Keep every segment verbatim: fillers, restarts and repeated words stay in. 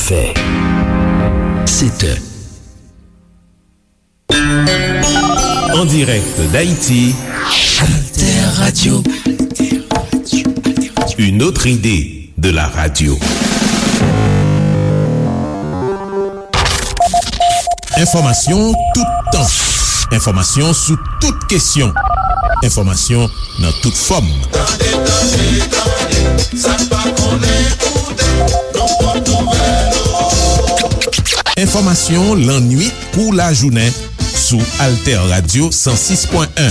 Fè. Sèt è. En direct d'Haïti, Alter Radio. Une autre idée de la radio. Enfòmasyon toutan. Enfòmasyon sou tout kesyon. Enfòmasyon nan tout fòm. Tande, tande, tande, sa n pa konnen koute, nou pot nouvèl ou. Enfòmasyon lannwit kou lajounen sou Alter Radio san sis pwen en.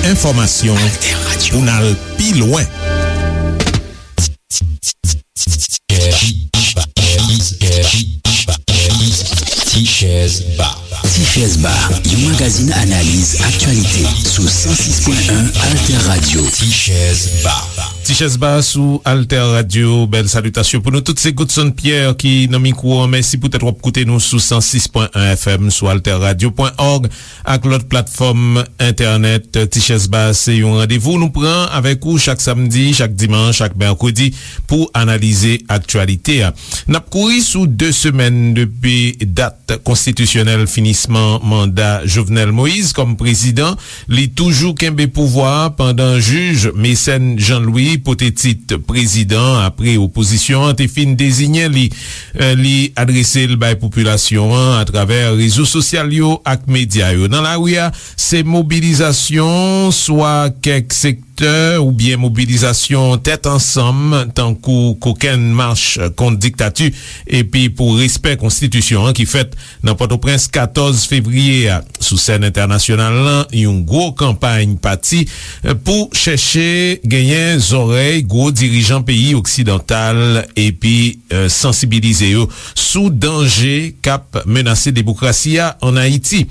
Enfòmasyon pou n al pi lwen. Tichèz Ba. Tichèz Ba, yon magazin analiz aktyalite sou san sis pwen en Alter Radio. Tichèz Ba. Tichèz Ba sou Alter Radio. Bèl salitasyon pou nou tout. Se Godson Pierre ki nan mikwo an. Mèsi poutèt w ap koute nou sou san sis pwen en F M, sou alter radio pwen org ak lòt platfòm entènèt. Tichèz Ba se yon randevou nou pran avèk ou chak samdi, chak dimanch, chak mèkredi pou analize aktyalite a. N ap kouri sou de semèn depi dat konstitisyonèl finisman manda Jovenel Moïse kòm prezidan. Li toujou kenbe pouvwa a pandan jij Mécène Jean Louis pote tit prezidan apre opozisyon an te fin deziyen li. Eh, li adrese l bay popilasyon an atravè rezo sosyal yo ak medya yo. Nan lari a, se mobilizasyon, swa kèk sektè oubyen mobilizasyon tèt ansanm, tankou kokenn mach kont diktati epi pou respè konstitisyon an ki fèt nan Pòtoprens katòz fevriye a. Sou sèn entènasyonal lan, yon gwo kanpay pati, eh, pou chèche genyen zòrèy gwo dirijan peyi oksidantal epi, eh, sansibilize yo sou danje k ap menase demokrasi a ann Ayiti.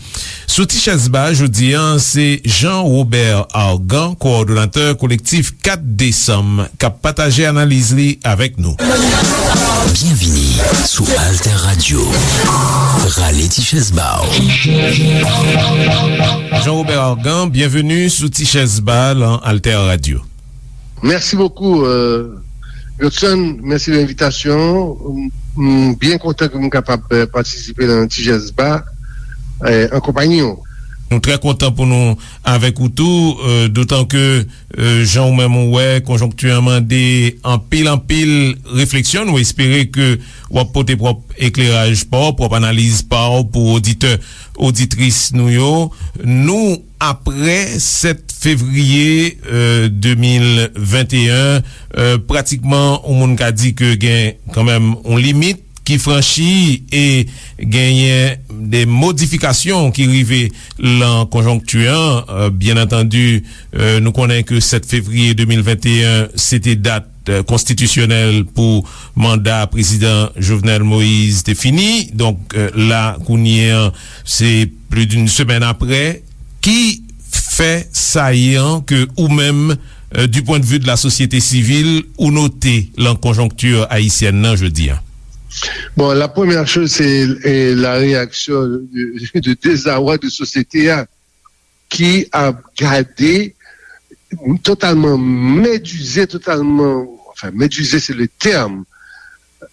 Sou Tichèz Ba jodi a, se Jean Robert Argan, kowòdonatè kolektif kat desanm, k ap pataje analiz li avèk nou. Byenvini sou Alter Radio. Rale ti chèz ba w. Jean Robert Argan, byenveni sou Ti Chèz Ba lan Alter Radio. Merci beaucoup, euh, Godson. Merci de l'invitation. M, m byen kontan ke m kapab, euh, patisipe nan Ti Chèz Ba, euh, an konpayi w. Nou trè kontan pou nou avèk ou tou, euh, dotan ke, euh, jan ou menm ou wè, konjonkti an mande anpil, anpil refleksyon. Nou espere ke w ap pote pwòp ekleraj pa w, pwòp analiz pa w pou oditè, oditris nou yo. Nou, apre sèt fevriye, euh, de mil venteyen, euh, pratikman, yon moun ka di ke gen kanmenm yon limit ki franchi e genyen de modifikasyon ki rive lan konjonkti an. Euh, byen antandi, euh, nou konnen ke sèt fevriye de mil venteyen, se te dat, euh, konstitisyonèl pou manda prezidan Jovenel Moïse te fini. Donk, euh, la, kounye an, se plis d'une semèn apre. Ki fè sayan ke ou menm, euh, du point de vue de la société civile, ou note lan konjonkti ayisyèn nan jodi a? Bon, la première chose, c'est, euh, la réaction de, de désarroi de société a, ki ap gade totalman medize, totalman, enfin, medize, c'est le terme,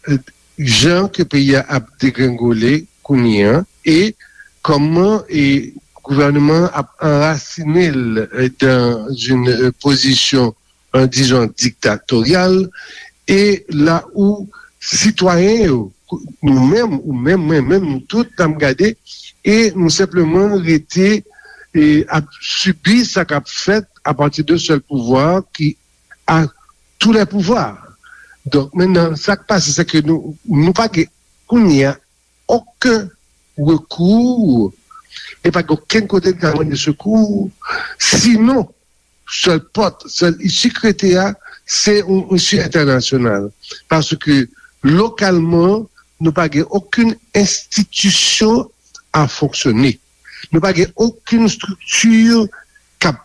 euh, jan ke peyi a ap degrengole kounye an, e kòman, e gouvènman an ap anrasine l, euh, dans une, euh, position, euh, disons, dictatoriale, e la où sitwayen yo, nou menm, ou menm, mwen menm, nou tout, n ap gade, e nou senpleman rete, e ap sibi sa k ap fèt apati de sèl pouvwa ki a tous les pouvoirs. Donk, mentnan, sa k pase, se ke nou, nou pa gen kounye a okenn rekou, e pa gen okenn kote n ka mande sekou, sinon, sèl pòt, sèl isi k rete a, se yon isi entènasyonal. Paske, lokalman, nou pa gen okenn enstitisyon a fonksyone. Nou pa gen okenn estrikti k ap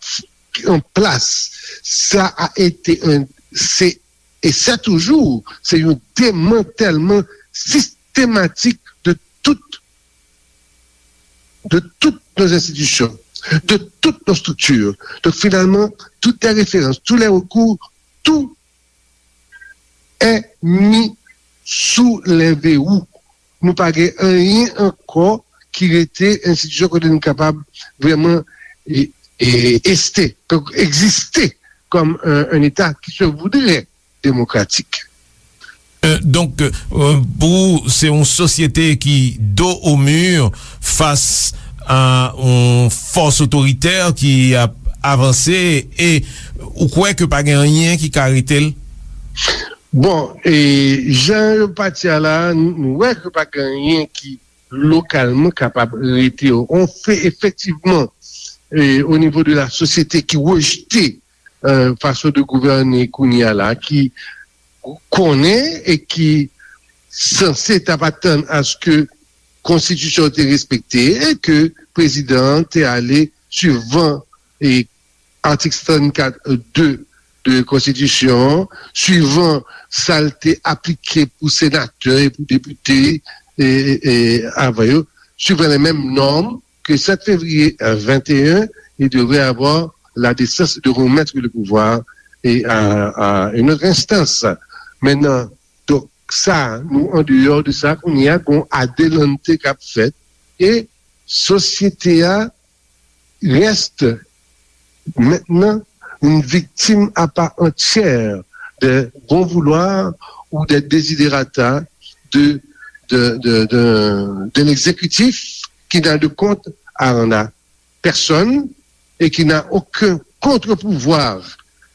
an plas. Sa a ete, se, e se toujou, se yon demantèlman sistematik de tout, de toutes nos institutions, de toutes nos structures. Donc, finalement, toutes les références, tous les recours, tout est mis sou lè verou. Nou pa gen anyen ankò ki rete enstitisyon kote nou kapab vrèman e, e, este, egziste kòm un, un État qui se voudrait démocratique. Euh, donk, euh, pou ou, se yon sosyete ki do o mi fas a yon fòs otoritè ki ap avanse e ou kwè ke pa gen anyen ki ka rete l? Bon, e jan yo pati a la, nou wè ke pa gen anyen ki lokalman kapab rete yo. On fe efektivman e, o nivo de la sosyete ki rejte e, fason de gouvène kounye a la, ki konnen e ki sanse t ap atann aske konstitisyon te respekte e ke prezidan an te ale suivan e atik sannkat de de konstitisyon an, suivan sa l te aplike pou senatè e pou depite e, e, e avan yo, suivant les mêmes normes, que sept février vingt et un, il devrait avoir la décence de remettre le pouvoir et à, à une autre instance. Maintenant, donk sa, nou an deyò de sa, kounye a gon adelante k ap fèt e sosyete a reste maintenant une victime à part entière des bons vouloirs ou des desiderata de, de, de, de, de l'exécutif qui n'a de compte à rendre à personne et qui n'a aucun contre-pouvoir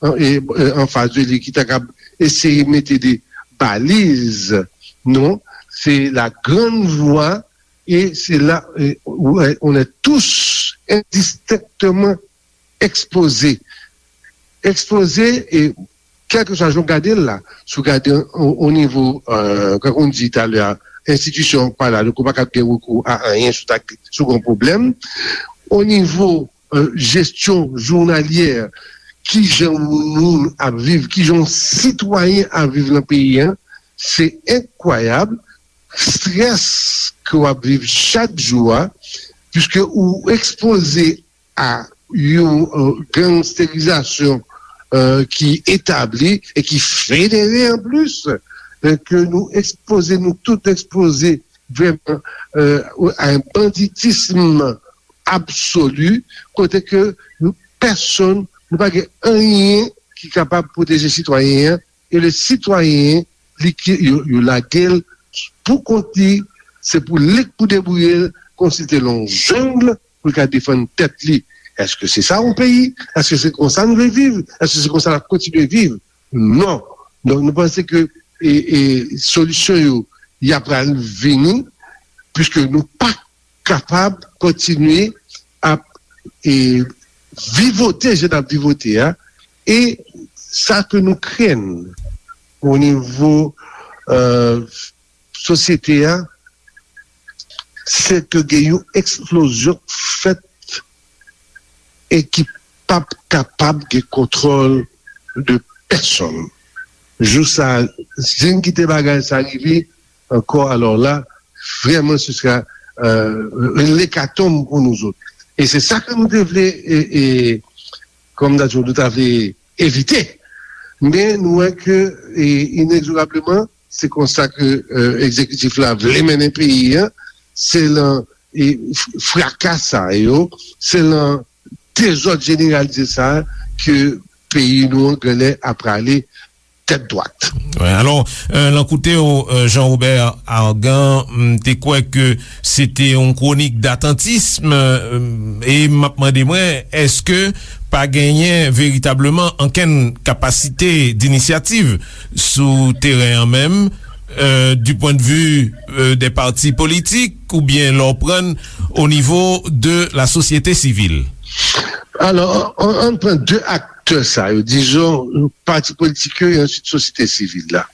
en, et, euh, en face de lui qui est capable d'essayer de mettre des balises. Non, c'est la grande voie et c'est là euh, où euh, on est tous indistinctement exposés. Exposés et kèlkeswa jan w gade l la, si w gade o nivo, kan w di talè a, enstitisyon pa la, donk ou pa kab gen rekou a anyen si w ta, si w gen yon pwoblèm. O nivo jesyon jounalyè, kijan yon moun ap viv, kijan yon sitwayen ap viv nan peyi a, se enkwayab, strès ke w ap viv chak jou a, piske ou ekspoze a yon gangsterizasyon ki etabli e ki federe anplis, ke nou ekspoze, nou tout ekspoze vrèman a yon banditism absoli, kote ke nou pèsonn, nou pa gen anyen ki kapab pwoteje sitwayen an, e le sitwayen li ki yo, yo lage l pou kont li, se pou li k pou debouye l, kòmsi l te nan yon jeng, pou l ka defann tèt li. Èske se sa yon peyi? Èske se konsa nou vle viv? Èske se konsa n ap kontinye viv? Non. Donk nou panse ke e, e, solisyon yo y ap pral vini, piske nou pa kapab kontinye ap e, vivote jan n ap vivote a, e sa ke nou krenn o nivo sosyete a, se ke gen yon eksplozyon k fèt e ki p ap kapab gen kontwòl de pèsonn. Jou sa a, si n kite bagay sa rive ankò, alò la, vrèman, se sera yon lekatonm pou nou zòt. E se sa ke nou te vle, e, e, kòm nou ta vle evite. Men nou wè ke, e, inegzorableman, se konsa ke egzekitif la vle mennen peyi a, se lan fraka sa yo, se lan dezòd jeneralize sa ke peyi nou an genlè ap prale tèt dwat. Alò, lan kote w, Jean Robert Argan, m te kwè ke se te yon kwonik datantism, e m ap mande mwen, èske pa genyen veritableman ankenn kapasite dinisyativ sou teren an menm, du point de vue des partis politiques, oubyen lè w pran o nivo de la sosyete sivil? Alò, ann pran de aktè sa yo, dizon, pati politik yo e answit sosyete sivil la.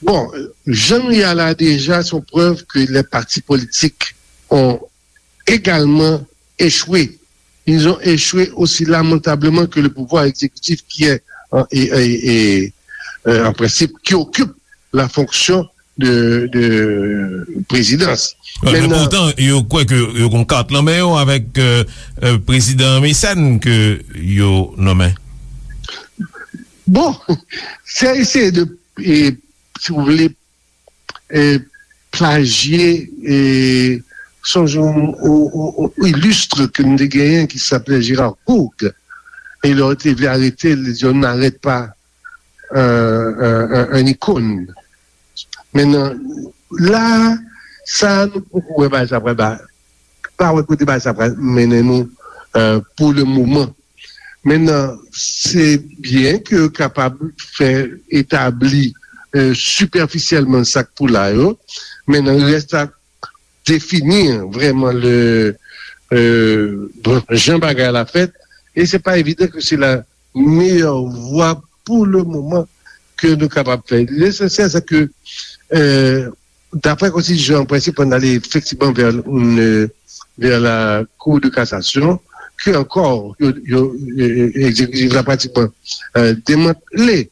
Bon, jan nou ye a la deja, se yon prèv ke les partis politiques ont également échoué. Ils ont échoué aussi lamentablement que le pouvoir exécutif qui est en, et, et, et, euh, en principe, qui occupe la fonction de, de présidence. Men poutan, yo kwè ke yo gon kat nan men yo avèk prezidan Mecène ke yo nonmen. Bon, se eseye de, e, si w vle, e, plajye, e, sonje yon, yon, yon, yon ilistre ke nou te genyen ki se aplè Gérard Courgue. E lè yo te vle arete l, li di, on n'arrête pas un, un, un, un icône. Mentnan, la, sa nou poko wè bagay sa pral ba, pa wè kote bagay sa pral mennen nou, euh, pou le moman. Mentnan, se byen ke yo kapab fè etabli, euh, sipèfisyèlman sa k pou la yo, mentnan, rès la defini vrèman le, euh, bon, jan bagay la fèt, e se pa evidan ke se la meyè vwa pou le moman ke nou kapab fè. Lesansyèl, se ke, euh, daprè konstitiyon an, prensip an ale efektivman vè, euh, vè la Cour de cassation, ke ankò, yo, yo, euh, egzekitif la pratikman, euh, demantle.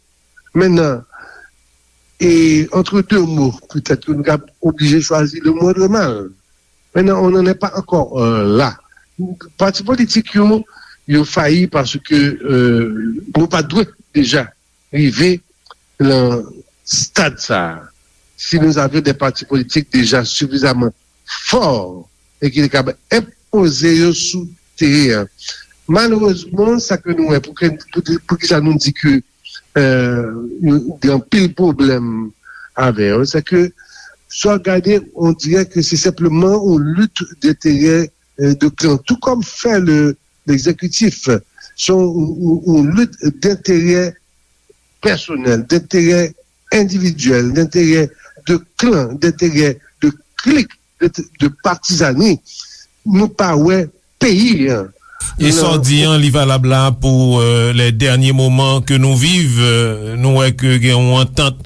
Mentnan, e, entre deux mots, petèt ke nou ka oblije chwazi le moindre mal. Mentnan, on n'en est pas encore, euh, là. Pati politik yo, yo fayi paske, euh, nou pa dwe deja rive nan stad sa a. Si nous avions des partis politiques déjà suffisamment forts e ki te kapab enpoze yo sou teren an. Malerezman, sa ke nou wè, pou ke, pou, pou ki sa nou di ke, euh, nou gen anpil pwoblèm avè yo, se ke, si w gade, on dirait que c'est simplement une lutte d'intérêt, euh, de clan, tout comme fait le, l'exécutif. C'est une, une, une lutte d'intérêt personnel, d'intérêt individuel, d'intérêt de clan, d'intérêt de clique, de, de partisanerie. Nou pa wè peyi an. E sa w di an, li valab la pou, euh, les derniers moments que nous vivons. Euh, nou wè ke gen yon antant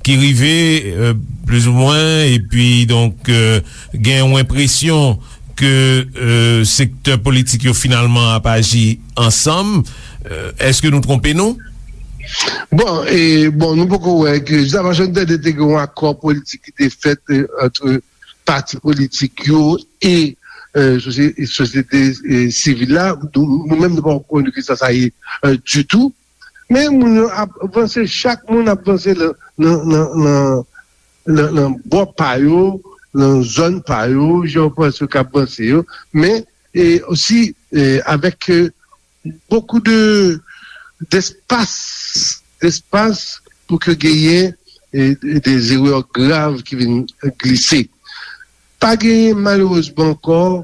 ki rive, euh, plizoumwen, epi donk, euh, gen yon enpresyon ke, euh, sektè politik yo finalman ap aji ansanm. Euh, èske nou twonpe nou? Bon, e, bon, nou poko wè ke, jis avan Johnny Tande te gen yon akò politik ki te fèt, euh, ant pati politik yo e, euh, sosye-, sosyete, euh, sivil la. Nou, nou menm, nou pa konnen ki sa sa ye, euh, ditou. Men moun yo ap vanse, chak moun ap vanse nan, nan, nan, nan, nan, nan bò pa yo, nan zòn pa yo, jan yo panse yo k ap vanse yo. Men, e osi, e avèk, e, beaucoup de, d'espace, d'espace pou ke genyen, e, des erreurs graves ki vin glise. Pa genyen, malerezman ankò,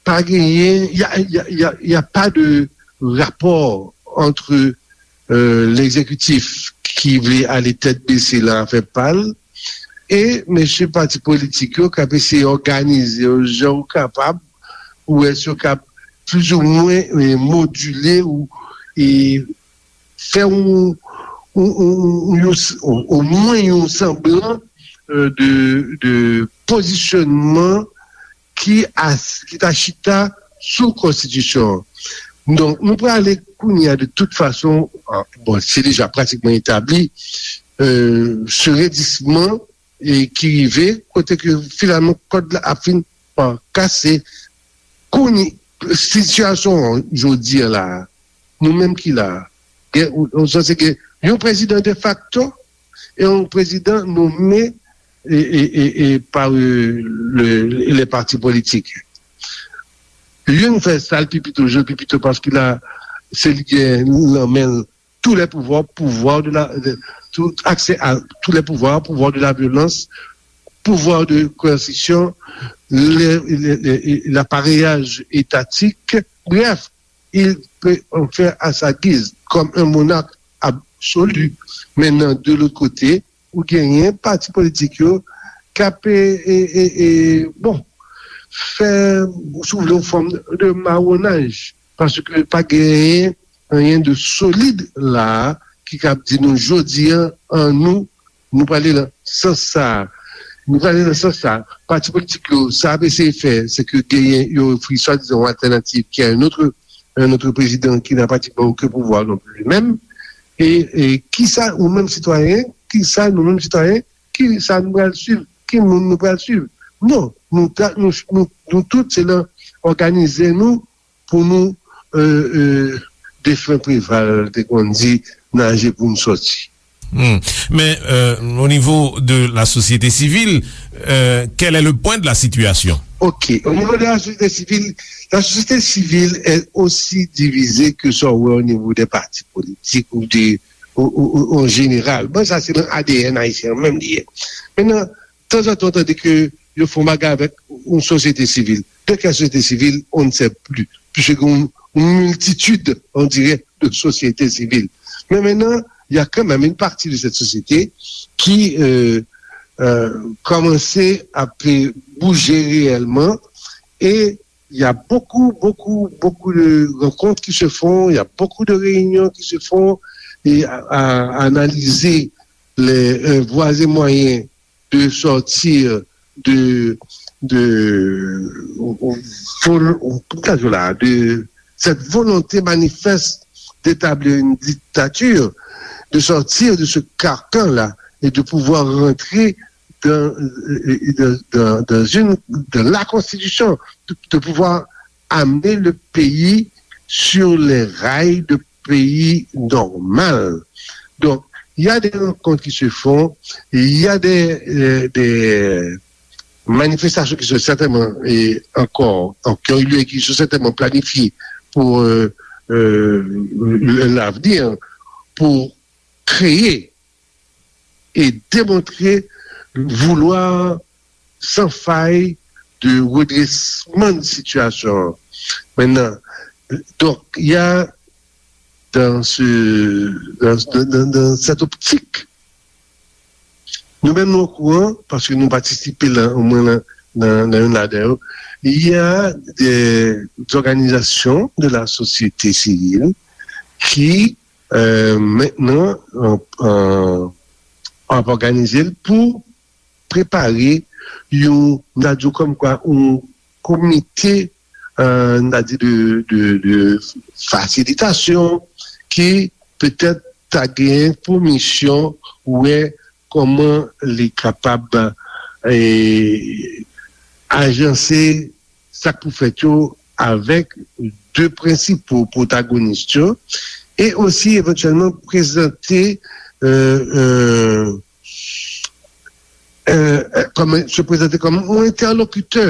pa genyen, y a, y a, y a, y a pas de rapport entre, euh, l'exécutif ki vle ale tèt bese lan afè pa l, e mesye pati politik yo k ap eseye òganize yo jan yo kapab, ou wè si yo kab plizoumwen, e, modile ou, e, fè yon, yon, yon, yon, yon, omwen yon sanblan, euh, de, de pozisyonman ki as-, ki ta chita sou konstitisyon an. Donk, nou prale kounye a de tout fason, ah, bon, se deja pratikman etabli, euh, se redisman, e ki rive, kote ke finalman kòd la ap fin pa kase. Kounye, sitiyasyon an jodi a la, nou menm ki la, gen, ou, ou sanse gen yon prezidan defakto e yon prezidan nome e, e, e, e pa, e, le, le, le pati politik. Youn fè sa l pi pito, je l pi pito, paske la, se li gen nan men l tous les pouvoirs, pouvoir de la, de, tout accès à tous les pouvoirs, pouvoir de la violence, pouvoir de coercition, le, le, le, l'appareillage étatique. Bref, il peut en faire à sa guise, comme un monarque absolu. Maintenant, de l'autre côté, ou genyen pati politik yo k ap, e, e, e, e, bon, fè, si w vle, yon fòm de mawonaj, paske pa genyen anyen de solid la a ki kab di nou jodi a, an nou, nou prale nan sans sa a. Nou prale nan sans sa a. Pati politik yo, sa y ap eseye fè, se ke genyen, yo ofri swadizan yon altènativ ki a un autre, un autre président qui n'a pratiquement aucun pouvoir non plus lui-même. E, e kisa ou menm sitwayen, kisa nou menm sitwayen, kisa nou pral swiv, ki moun nou pral swiv? Non, nou, ta, nou, nou, nou tout se nan òganize nou pou nou, euh, euh, defen Preval te konn di, naje pou n sòti. Hmm. Mais euh, au niveau de la société civile, euh, quel est le point de la situation? Ok, au niveau de la société civile, la société civile est aussi divisée que ça, ouais, au niveau des partis politiques ou des, ou, ou, ou, en général. Bon, ça, c'est dans l'A D N haïtien, même lié. Maintenant, tanzantan, w tande ke yo fè yon bagay avèk yon sosyete sivil. De quelle société civile, on ne sait plus, puisque une, une multitude, on dirait, de sociétés civiles. Mais maintenant, il y a quand même une partie de cette société qui euh, euh, commençait à bouger réellement et il y a beaucoup, beaucoup, beaucoup de rencontres qui se font, il y a beaucoup de réunions qui se font et à, à analyser les euh, voies et moyens de sortir de, de, de cette volonté manifeste d'établir une dictature, de sortir de ce carcan-là et de pouvoir rentrer dans, dans, dans, une, dans la Constitution, de, de pouvoir amener le pays sur les rails de pays normal. Donc, il y a des rencontres qui se font, il y a des, euh, des manifestations qui sont certainement et encore, qui ont eu lieu et qui sont certainement planifiées pour euh, euh, l'avenir, pour créer et démontrer vouloir sans faille de redressement de situation. Maintenant, donc, il y a dans, ce, dans, dans, dans cette optique, nou menm nou okouran, paske nou patisipe la, omwen nan, nan, nan youn ladan yo, il y a des organisations de la société civile qui euh, maintenant, euh, euh, ap òganize l pou prepare yon, m ta di w kòmkwa, yon komite, euh, m ta di de, de, de fasilitasyon ki petèt ta gen pou misyon wè kòman li kapab eh, ajanse sa k pou fèt yo avèk de prensipo pwotagonis yo e osi evantyèlman prezante euh, euh, euh, kòm, se prezante kòm yon entèlokitè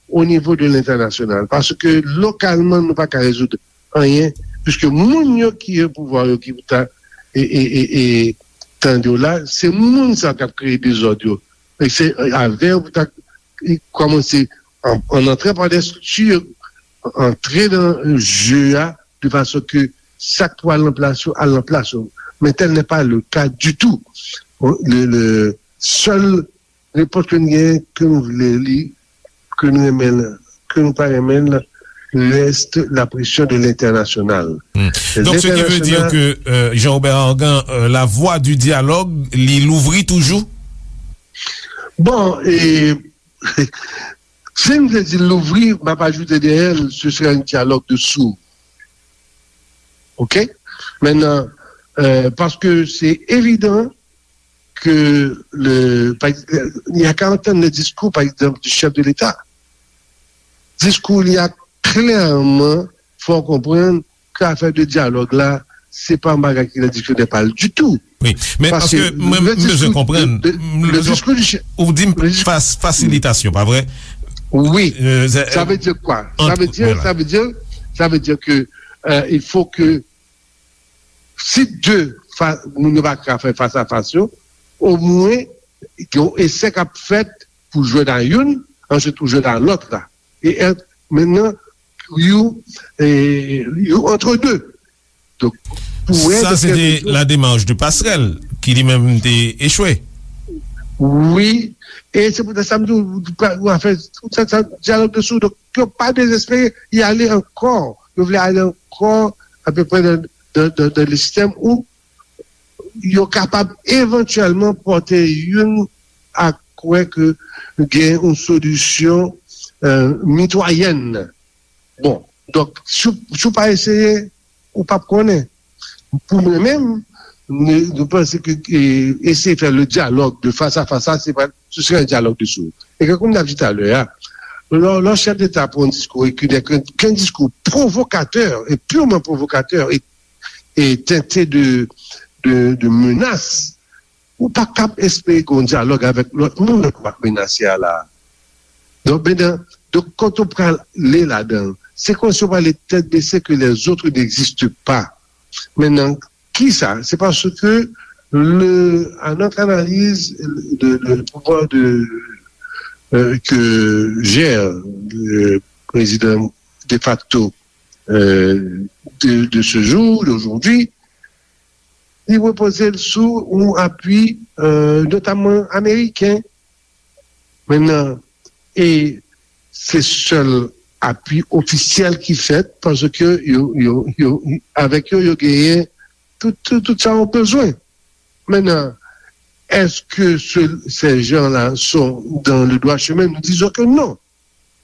o nivo de lentènasyonal, paske lokalman nou pa ka rezoud anyen, piske moun yo ki gen pouvwa yo ki pou ta e, e, e, e tande w la, se moun sa k ap kreye dezòd yo. E se avè yo pou ta kòmanse an, an antre pa de strikti, antre nan je a, de fason ke sa k pou al nan plas yo, al nan plas yo. Men tel n'est pas le cas du tout. Le, le sèl repons ke n genyen, ke nou vle li, ke nou renmen l, ke nou pa renmen l, reste la pression de l'international. Hmm. Donc, ce qui veut dire que euh, Jean-Robert Argan, euh, la voie du dialogue, li louvri toujou? Bon, e, si m te di louvri, m ap ajoute dèyè l, ce serait un dialogue de sourds. OK? Maintenant, euh, parce que c'est évident ke le, pa, y a ka antann le diskou, pa egzanp, di chèf de Leta. Diskou li a klèman fè w konprann ke afè de dyalòg la, se pa yon bagay ki nan diksyonè pa l ditou. Wi, men paske mwen, m bezwen konprann. Ou di m fasilitasyon, pa vre? Wi. Sa vle di kwa? Sa vle di, sa vle di, sa vle di ke euh, il faut que si de moun yo pa ka fè fas a fas yo, omwen gen yon esè k ap fèt pou jwenn a youn, answit pou jwenn a lòt la. E mentnan, you, you entre deux. Donk, pou wè. Sa se te la démarche de Passerelle ki li menm te echwe. Wi, e se poutèt sa m di w, afè, sa, sa, dyalòg de sourds, donk, yo pa dezespere, y ale ankò, yo vle ale ankò, apeprè nan, nan, nan, nan le sistèm ou yo kapab evantyèlman pòte youn a kwè ke gen yon solisyon euh, mitwayèn. Bon, donk, si, si w pa eseye, ou p ap konnen. Pou mwen menm, nou, nou panse ke e, eseye fè le dialogue de face à face, sa, se pa, ce serait un dialogue de sourds. E kankou m t ap di talè a, lè, lè chèf deta pran yon diskou e ki n'est qu'un qu'un discours provocateur et purement provocateur et, et teinté de, de, de menace, ou pa kab espere gen yon dyalòg avèk lòt moun k ap menase a la. Donk, mennan, donk, kote w prale ladan l? Se kòmsi w prale tèt bese ke les autres n'existent pas. Mennan, kisa? Se paske le, à notre analyse, le, le pouvoir de, euh, que gère le président de facto, euh, de, de ce jour, d'aujourd'hui, li repoze l sou yon apui, euh, notamman ameriken. Mennan, e se sèl apui ofisyèl ki fèt paske yo, yo, yo, avèk yo, yo genyen tout, tout, tout sa yo bezwen. Mennan, est-ce que ce, ces gens-là sont dans le droit chemin? Nous disons que non.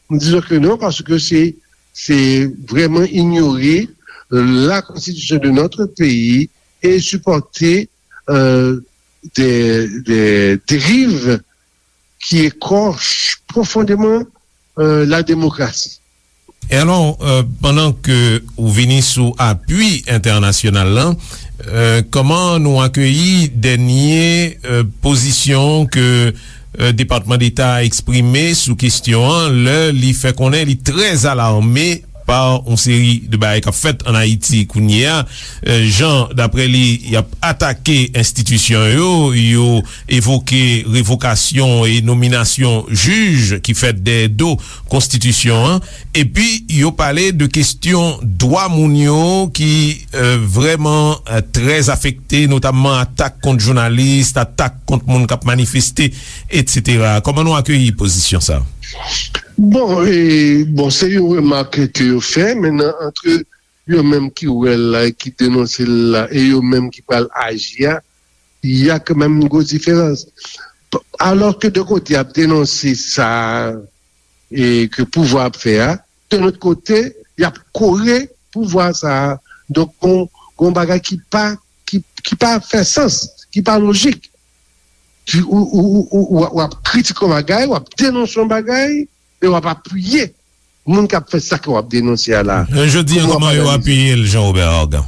Nous disons que non parce que c'est, c'est vraiment ignorer la constitution de notre pays et supporter, euh, des, des dérives qui écorchent profondément, euh, la démocratie. E alò, euh, pandan ke ou vini sou apui entènasyonal la, euh, kòman nou akeyi dènye, euh, pozisyon ke, euh, Depatman Deta a eksprime sou kesyon an, lè li fè konnen li trè alame pa yon seri de bagay k ap fèt ann Ayiti kounye a, euh, jan, daprè li, y ap atake enstitisyon yo, yo evoke revokasyon e nominasyon jij ki fèt dèyè do konstitisyon an, epi yo pale de kesyon dwa moun yo ki, euh, vrèman, euh, trè afekte, notamman atak kont jounalis, atak kont moun k ap manifeste, etsetera. Kòman nou akeyi pozisyon sa? Bon, e, bon, se yon remak ke yo fè. Mennan, antre yo menm ki wè l la e ki denonse l la, e yo menm ki pral aji a, y a kanmenm yon gwo diferans. P-, alò ke de kote y ap denonse sa e ke pouvwa ap fè a, de lòt kote, y ap kore pouvwa sa a. Donk, gon, gon bagay ki pa, ki, ki pa fè sans, ki pa lojik. Ki, ou, ou, ou, ou, w ap kritike yon bagay, w ap denonse yon bagay, e w ap apiye moun k ap fè sa ke w ap denonse a la. Jodi a, kòman yo apiye l, Jean Robert Argan?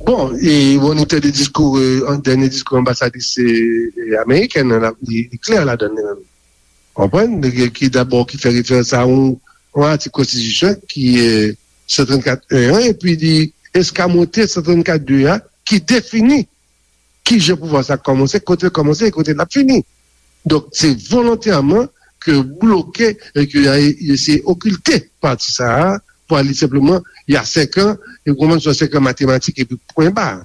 Bon, e, bon, nou te de diskou, e, an, dènye diskou anbasadris, e, e, amerikèn nan, li, li klè ladan l, li menm. Konprann? Ki dabò, ki fè referans a yon, yon atik konstitisyon ki, e, san trannkat en an, epi li eskamote san trannkat de a, ki defini kijan pouvwa sa kòmanse, kote l kòmanse e kote l ap fini. Donk, se volontèman ke bloke e ke y a eseye okilte pati sa a, pou al li senpleman, y a senk an, e kòmanse senk an matematik epi pwen ba.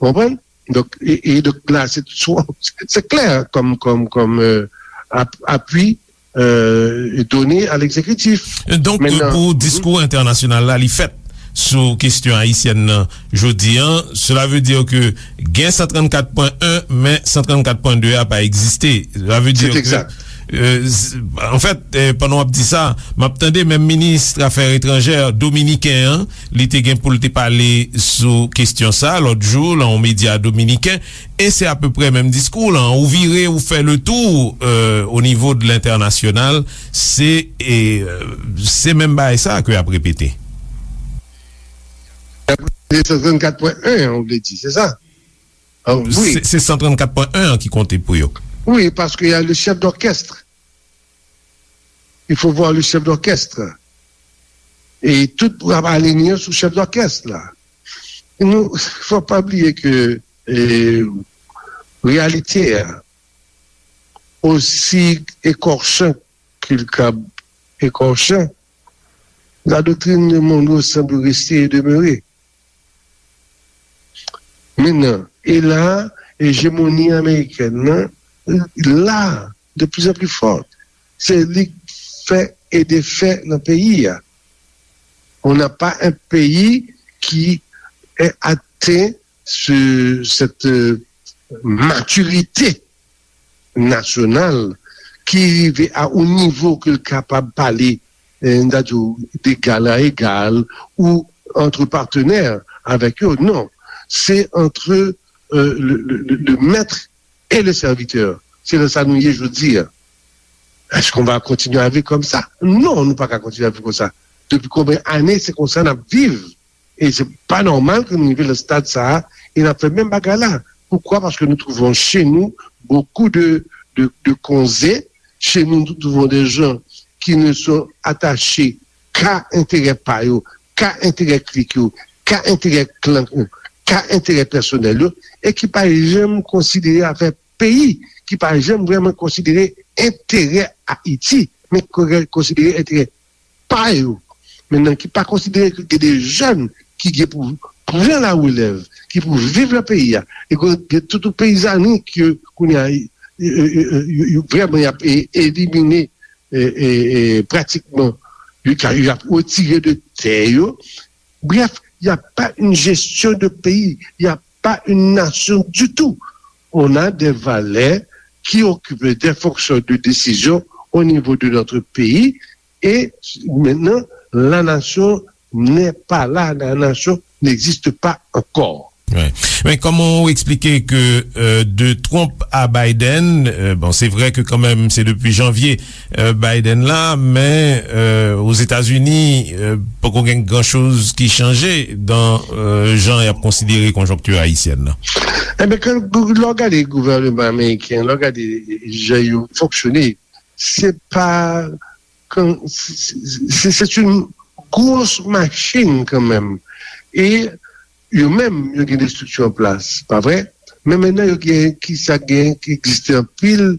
Konprann? Donk, e, e donk la, se, se klè kòm, kòm, kòm, euh, ap-, apui, euh, donné à l'exécutif. Donk, pou diskou entènasyonal la, li fèt sou kesyon ayisyèn nan jodi a, cela veut dire que gen san trannkat pwen en, men san trannkat pwen de a pa egziste. Cela veut dire que, euh, s-, an fèt, euh, pandan w ap di sa, m ap tande menm minis afè etranjè dominiken an, li te gen pou l te pale sou kesyon sa lòt jou, lan yon medya dominiken, e se apeprè menm diskou lan. Ou vire, ou fè le tou, euh, o nivo de lentènasyonal, se, e, euh, se menm bagay sa ke y ap repete. Se san trannkat pwen en an, ou vle di, se sa? Ah, wi. Se, se san trannkat pwen en an ki konte pou yo. Wi, paske y a le chef d'orchestre. Il faut voir le chef d'orchestre. E tout ap alinye sou chef d'orchestre la. Nou, fò pa bliye ke, e, reyalite a, osi ekòchan ke l kab ekòchan, la doctrine de Monroe semble rester et demeurer. Mennan, e la, ejemoni amerikèn nan, la, de plus en plus forte. Se li k fè e defè nan peyi a. On n'a pas un pays qui est atteint ce, cette, euh, maturité nasyonal ki rive a yon nivo ke l kapab pale, eh, n ta di w, d'égal à égal ou entre partenaires avèk yo. Non. Se entre, euh, le, le, le, le maître et le serviteur. Se nan sa nou ye jodi a. Est-ce qu'on va continuer à vivre comme ça? Non, nou pa ka kontinye ap viv konsa. Depi konbyen ane se konsa n ap viv? E se pa nòmal ke nou rive nan stad sa a e n ap fè menm bagay la. Pourquoi? Parce que nous trouvons chez nous beaucoup de, de, de konze. Chez nous, nous trouvons des gens qui ne sont attachés qu'à intérêt pa yo, qu'à intérêt klik yo, qu'à intérêt klan yo, qu'à intérêt pèsonèl yo, e ki pa janm konsidere afè peyi, ki pa janm vrèman konsidere enterè Ayiti, men konsidere enterè pa yo. Mentnan, ki pa konsidere ke gen de jèn ki gen pou pran la relèv, ki pou viv nan peyi a. E gen tout peyizani ke kounye a, e, e, e, e, yo, yo vrèman y ap e, elimine, e, e, e, pratikman, yo ka, y ap retire de tè yo. Bref, il n'y a pas une gestion de pays, il n'y a pas une nation du tout. On a des valeurs qui occupent des fonctions de décision au niveau de notre pays. Et maintenant, la nation n'est pas là, la nation n'existe pas encore. Wi. Men kòman w eksplike ke, euh, de Trump a Biden, euh, bon, se vre ke kanmenm se depi janvye, euh, Biden la, men, euh, Ozetazini, euh, poko gen gran choz ki chanje dan, euh, jan y ap konsidere konjonkti ayisyèn nan? Enben, ke, lè w gade gouvènman ameriken, lè w gade jan yo fonksyone, se pa kan, se, se, se, se yon gwo machin kanmenm. E yo menm, yo gen de estrikti an plas, pa vre? Men mentnan, yo gen, ki sa gen, ki egziste anpil,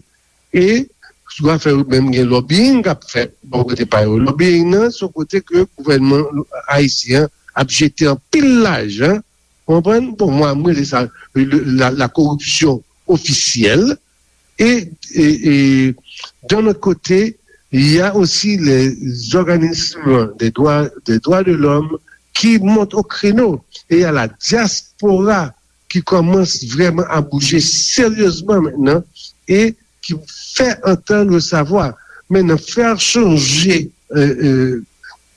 e sou afè yo menm gen lobbying k ap fèt bò kote pa yo. Lobbying nan, se yon kote ke gouvènman ayisyen an ap jete anpil lajan, w konprann? Bon, mwen, mwen rele sa le, la, la koripsyon ofisyèl. E, e, e, d'un autre côté, il y a aussi les organismes des droits, des droits de l'homme qui montent au créneau. Et il y a la diaspora ki kòmanse vrèman a bouje seryezman mentnan e ki fè antann le savwa. Mentnan, fè chanje, euh, euh,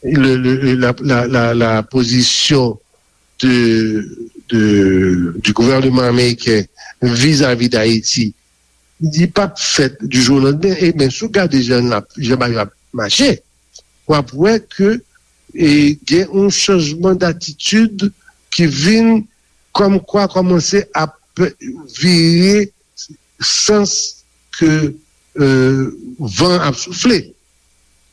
le, le, la, la, la, la pozisyon de, de, du gouvènman ameriken vizavi Dayiti, li p ap fèt du jour au lendemain. E men, si w gade jan l ap, jan bagay yo ap mache, w ap wè ke, e, gen yon chanjman datitid ki vin kòmkwa kòmanse ap vire sans ke, euh, van ap soufle.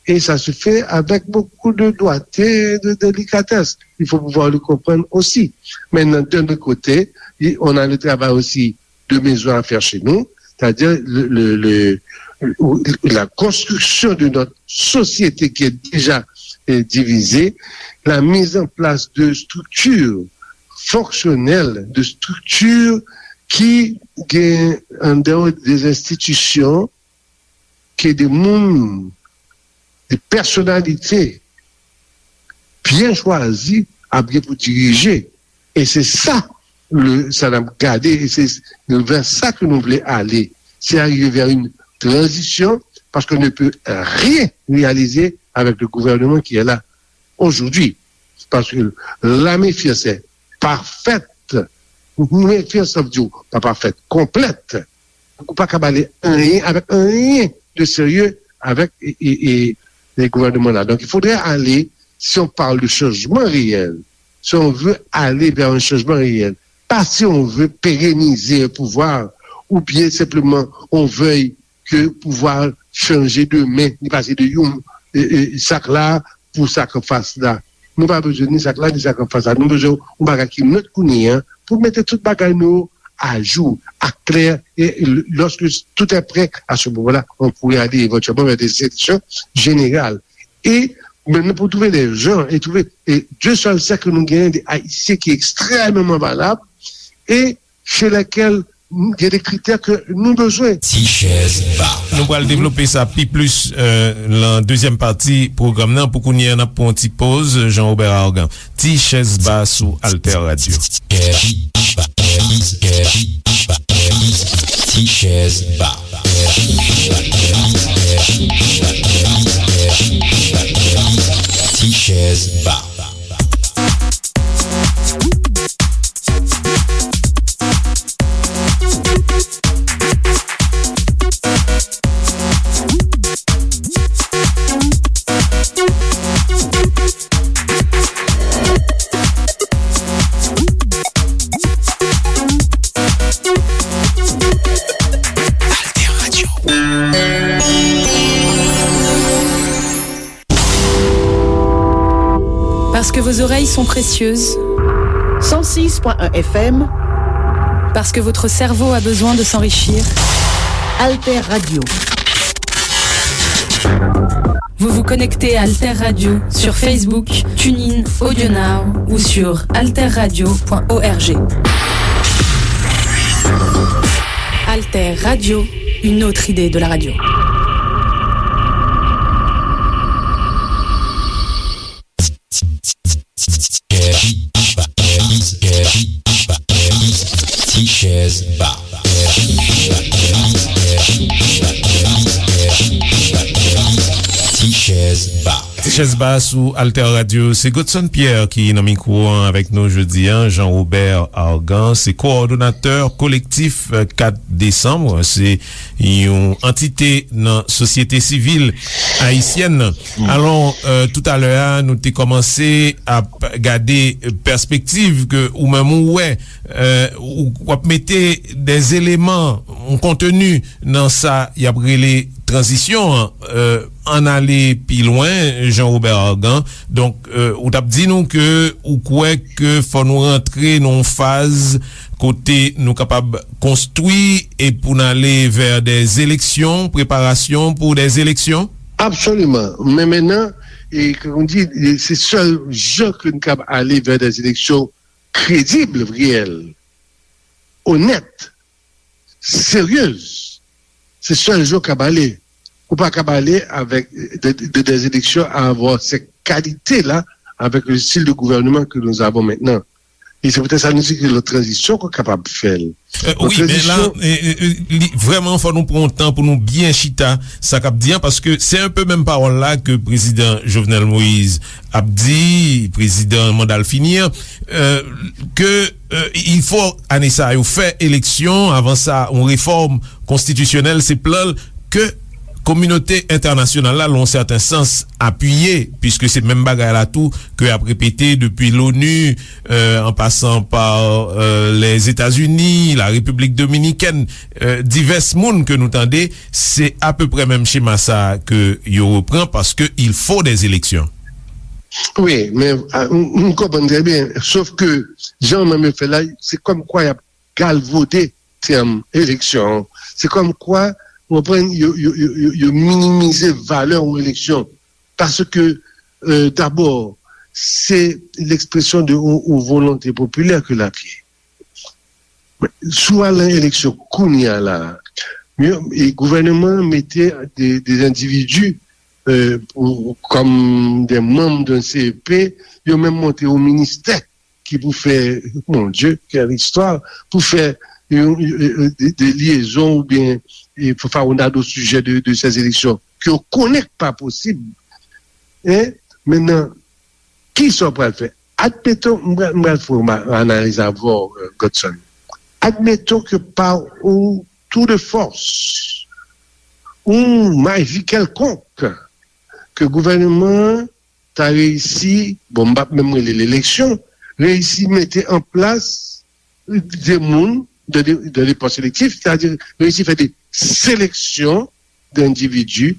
Et ça se fait avec beaucoup de doigté, de délicatesse. Il faut pouvoir le comprendre aussi. Maintenant, d'un autre côté, on a le travail aussi de maison à faire chez nous, c'est-à-dire le, le, le, la construction de notre société qui est déjà, euh, divisée, la mise en place de structures fonctionnelles, de structures ki gen an dehors des institutions ke de moun, de pèsonalite byen chwazi ap gen pou dirije. E se sa, le, sa n ap gade, e se vè sa ke nou vle ale. Se arrive vers une transition, parce qu'on ne peut rien réaliser avec le gouvernement qui est là aujourd'hui. Parce que la méfiance est parfaite. Méfiance, ça veut dire, pas parfaite, complète. Ou pa ka pale anyen avèk anyen de serye avèk e, e, e, e gouvènman la. Donc, il faudrait aller, si on parle de changement réel, si on veut aller vers un changement réel, pas si on veut pérenniser un pouvoir, ou bien simplement on veuille ke pouvwa chanje demen, li pase de yon, e, e, sak la pou sak anfas la. Nou pa bezwen ni sak la, ni sak anfas la. Nou bezwen yon bagay ki net kounye a pou mete tout bagay nou a jou, a klè, e l-, lorsque tout est prêt, à ce moment-là, on pourrait aller éventuellement vers des élections générales. E menm pou trouve de jan, e trouve, e de sèl sèk ke nou genyen de Ayisyen ki ekstrèmeman valab, e chez lesquels gen de kritè ke nou bezwen. Ti chèz ba. Nou pral devlope sa pi plis, euh, nan dezyèm pati pwogram nan. Pou kounye a, n ap pran yon ti poz, Jean Robert Argan. Ti chèz ba sou Alter Radio. Ti chèz ba. Ti chèz ba. Parce que vos oreilles sont précieuses. Cent six point un F M. Parce que votre cerveau a besoin de s'enrichir. Alter Radio. Vous vous connectez à Alter Radio sur Facebook, TuneIn, AudioNow ou sur alterradio point org. Alter Radio, une autre idée de la radio. Ti chèz ba. Ti chèz ba. Ti chèz ba sou Alter Radio. Se Godson Pierre ki nan mikwo an avèk nou jodi an. Jean Robert Argan, se kowòdonatè kolektif, eh, kat desanm. Se yon antite nan sosyete sivil ayisyèn nan. Alò, eh, toutalè a, nou te kòmanse ap gade pèspektiv ke ou menm ou wè, eh, ou, w ap mete dè eleman, yon konteni nan sa y ap rele tranzisyon an. Eh, ann ale pi lwen, Jean Robert Argan. Donk, eh, ou t ap di nou ke ou kwè ke fò nou rantre nan yon faz kote nou kapab konstwi e pou n ale vè dè eleksyon, preparasyon pou dè eleksyon? Absoliman. Men mentnan, e, kòm di, e, se sèl jan ke n kab ale vè dè eleksyon kredib, reyèl, onèt, seryez. Se sèl jan w kab ale. Ou pa kab ale avèk de, de, dè eleksyon avwa se kalite la, avèk le stil de gouvènman ke nou avon mentnan. E se poutèt sa nou di ke la tranzisyon ke w kapab fè l. Eh, wi, men la, eh, eh, eh, li, vrèman, fò nou pran yon tan pou nou byen chita sa k ap di an, paske se enpe menm pawòl la ke prezidan Jovenel Moïse ap di, prezidan manda l fini an, eh, ke, eh, il faut, ane sa yo, fè eleksyon, avan sa, yon refòm konstitisyonèl, se plan l ke kominote entènasyonal la, lan yon sèten sans, apiye, piske se menm bagay la tou ke y ap repete depi l'ONU, euh, en passant par, euh, les États-Unis, la République dominicaine, euh, divès moun ke nou tande, se apeprè menm chema sa ke yo repran, paske il faut des élections. Wi, men, a, m, m konprann trè byen, sof ke jan menm yo fè la, se kòmkwa y ap galvode tèm eleksyon an. Se kòmkwa, w konprann, yo, yo, yo, yo, yo minimize valè yon eleksyon. Paske, euh, dabò, se lekspresyon de yon, yon volonte popilè ke l ap ye. Si w al nan eleksyon kounye a la, yo, e gouvènman an mete de, de endividi, euh, pou, kòm de manm de C E P, yo menm monte yon ministè ki pou fè, mon Dieu, quelle histoire, pou fè yon, yon, de, de lyezon oubyen, e, pou fè yon dado sijè de, de ces élections, ke yo konnen k pa posib. Hein? Mentnan, kisa w pral fè? Admeton, m pral, m pral fè yon analiz avè w, euh, Godson. Admeton ke pa yon tour de force, yon maji kèlkonk, ke gouvènman an ta reyisi, bon, m p ap menm rele l eleksyon, reyisi mete an plas de moun dan de, dan de pòs elektif, sètadi reyisi fè de seleksyon d'endividi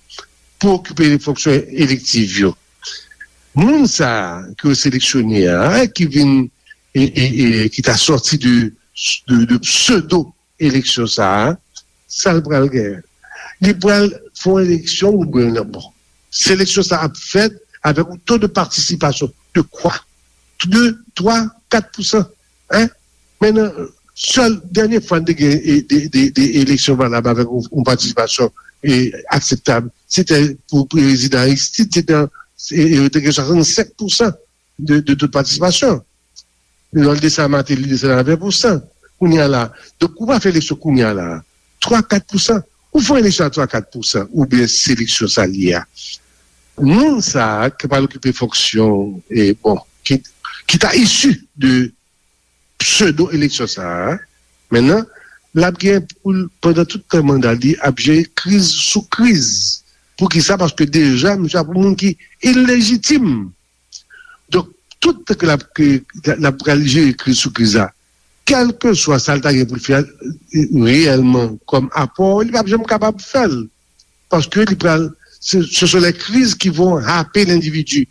pou okipe de fonksyon elektif yo. Moun sa a ke yo seleksyone a, ki vin, e, e, e, ki ta sòti de, de, de pseudo eleksyon sa a, sa l pral genyen? Li pral fè yon eleksyon oubyen non? Bon, seleksyon sa ap fèt avèk yon to de patisipasyon de kwa? De, twa, kat pousan. Hein? Mentnan, sèl dènye fwa n te gen, e, de, de, de eleksyon valab avèk yon, yon patisipasyon, e, akseptab, se te pou prezidan Aristide, se te, e, e, te gen swasannsenk pousan de, de to de patisipasyon. Lè l desann Martelly, li desann a ven pousan. Kounye a la, donk, ou pa fè eleksyon kounye a la, twa, kat pousan. Ou fè eleksyon a twa, kat pousan, oubyen seleksyon sa l ye a. Moun sa a ki pral okipe fonksyon, e, bon, ki, ki ta isi de pseudo eleksyon sa a, mentnan, l ap gen pou l, pandan tout tan manda li, ap jere kriz sou kriz. Poukisa? Paske deja, misye ap yon moun ki ilejitim. Donk, tout tan ke l ap, ke l ap pral jere kriz sou kriz la, kèlkeswa sa l ta gen pou l fè, e, reyèlman kòm apò, li p ap janm kapab fè l. Paske li pral, ce, ce sont les crises qui vont happer l'individu.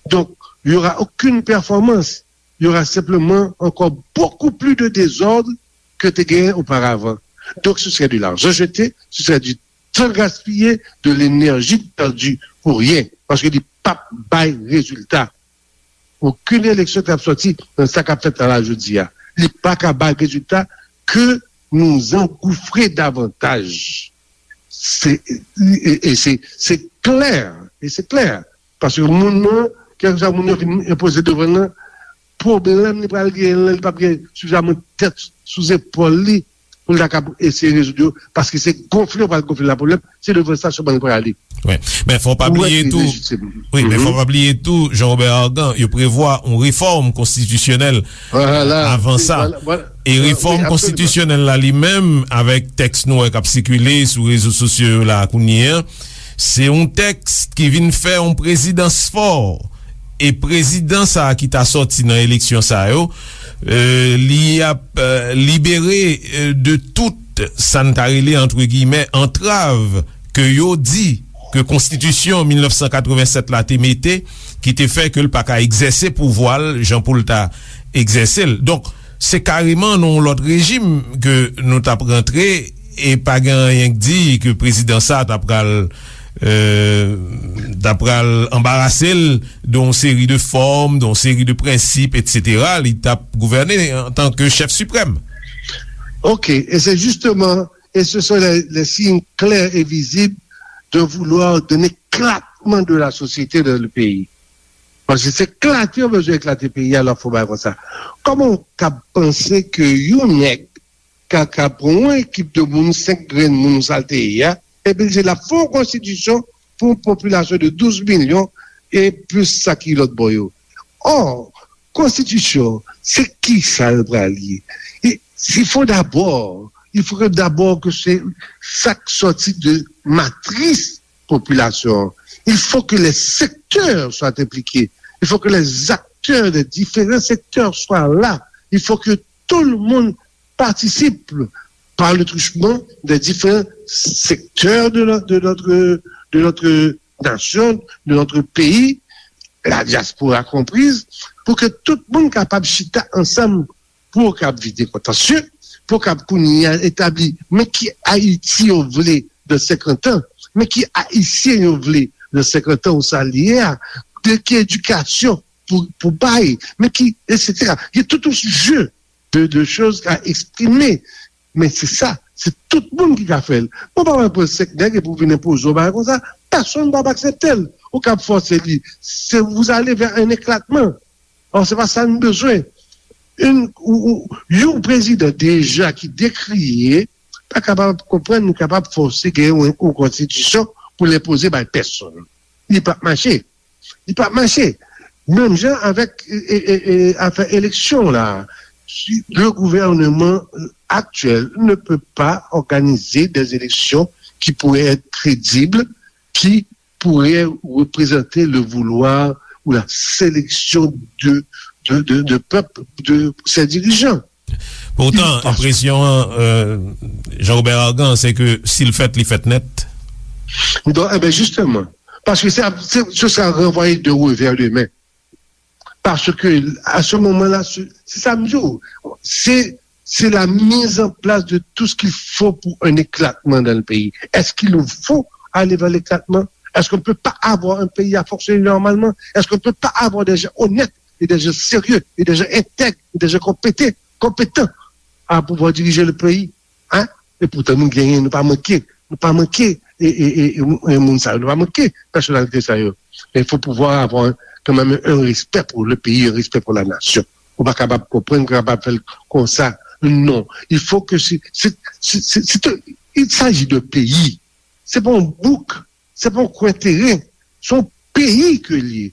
Donk, Il y aura aucune performance. Il y aura simplement encore beaucoup plus de désordre que te genyen auparavant. Donc, ce serait de l'argent jeté, ce serait du temps gaspillé, de l'énergie perdue pour rien. Paske li p ap bay rezilta. Okenn eleksyon k ap sòti nan sa k ap fèt la, la jodi a, li pa ka bay rezilta ke nou zangoufre davantaj. Se, e, e se, se klè, e se klè. Paske moun nan, kèlkeswa moun yo fin enpoze devan l nan, pwoblèm li pral genyen lan, li p ap gen sifizaman tèt sou zepòl li pou l ta kab eseye rezoud yo, paske se gonfle yo pral gonfle la pwoblèm, se devan sa sèlman li prale. Wi. Men fò pa bliye tou, wi, men fò pa bliye tou, Jean Robert Argan, yo prevwa yon refòm konstitisyonèl avan sa. E refòm konstitisyonèl la li menm, avèk tèks nou wè k ap sikile sou rezo sosyo yo la kounye a, se yon tèks ki vin fè yon prezidans fò. E prezidan sa a ki ta sòti nan eleksyon sa yo, e, li ap, e, libere, e, de tout sa n ta rele, antre giyimè, antrav ke yo di ke konstitisyon mil nèf san katreven sèt la te mete, ki te fè ke l pa ka egzèse pouvwa l jan pou l ta egzèse l. Donk, se kareman nan yon lòt rejim ke nou t ap rantre, e pa gen anyen k di ke prezidan sa ta pral, e, ta pral anbarase l de yon seri de fòm, de yon seri de prensip, etsetera. Li t ap gouvène antanke chèf siprèm. Ok, et c'est justement, et ce sont les, les signes clairs et visibles de vouloir d'un éclatement de la société dans le pays. Paske se eklate yo bezwen eklate peyi a, lè w fè yon bagay konsa. Kòman w kab panse ke yon nèg ka, ka pran yon ekip de moun, senk grenn moun, sa l te ye a, epi l di l ap fè yon konstitisyon pou yon popilasyon de douz milyon e plis sa ki lòt bò yo? Ò, konstitisyon, se kisa l pral ye? E, il faut d'abord, il faut d'abord que se sa k sòti de matris popilasyon an. Il faut que les secteurs soient impliqués. Il faut que les acteurs des différents secteurs soient là. Il faut que tout le monde participe par le truchement des différents secteurs de no-, de notre, de notre nation, de notre pays, la diaspora comprise, pou ke tout moun kapab chita ansanm pou yo kab vide kontansye, pou yo kab kounye a etabli, men ki Ayiti yo vle nan senkant an, men ki Ayisyen yo vle nan senkant an ou sa l ye a, de ki edikasyon pou, pou bay, men ki, etsetera. Gen tout yon jeu de, de choses à exprimer. Men se sa, se tout moun ki ka fè l. Ou pa wè pran senk nèg epi w vin enpoze yon bagay konsa, pèsonn p ap aksepte l. Ou kab fòse li. Se, vous allez vers un éclatement. Or, se pa sa n bezwen. Yon, ou, ou, yon prezidan deja ki dekriye, pa kapab konprann nou kapab fòse gen yon, yon konstitisyon pou l enpoze bay pèsonn. Li p ap mache. Li p ap mache. Menm jan avèk, e, e, e, afè eleksyon la. Si le gouvernement actuel ne peut pas organiser des élections qui pourraient être crédibles, qui pourrait représenter le vouloir ou la sélection de, de, de, de peuple, de ses dirigeants. Poutan, enpresyon an, euh, Jean Robert Argan, se ke si l fèt, li fèt nèt. Donk, e ben, justement, parce que ça, c'est, ce sera renvoyé de revers de main. Parce que, à ce moment-là, se, se sa m di w, se, c'est la mise en place de tout ce qu'il faut pour un éclatement dans le pays. Est-ce qu'il nous faut aller vers l'éclatement? Est-ce qu'on ne peut pas avoir un pays à fonctionner normalement? Est-ce qu'on ne peut pas avoir des gens honnêtes et des gens sérieux et des gens intègres et des gens compétents, compétents à pouvoir diriger le pays? Hein? E poutan nou genyen, nou pa manke, nou pa manke, e, e, e, e, e moun sa yo, nou pa manke pèsonalite sa yo. Men fò pouvwa a avoir kanmenm un respect pour le pays, un respect pour la nation. Ou pa kapab konprann, ou kapab fè l konsa. Non. Il faut que c'est, c'est, c'est, c'est, c'est un, il s'agit de pays. Se pa yon bouk, se pa yon kwen teren. Se yon peyi ke l ye.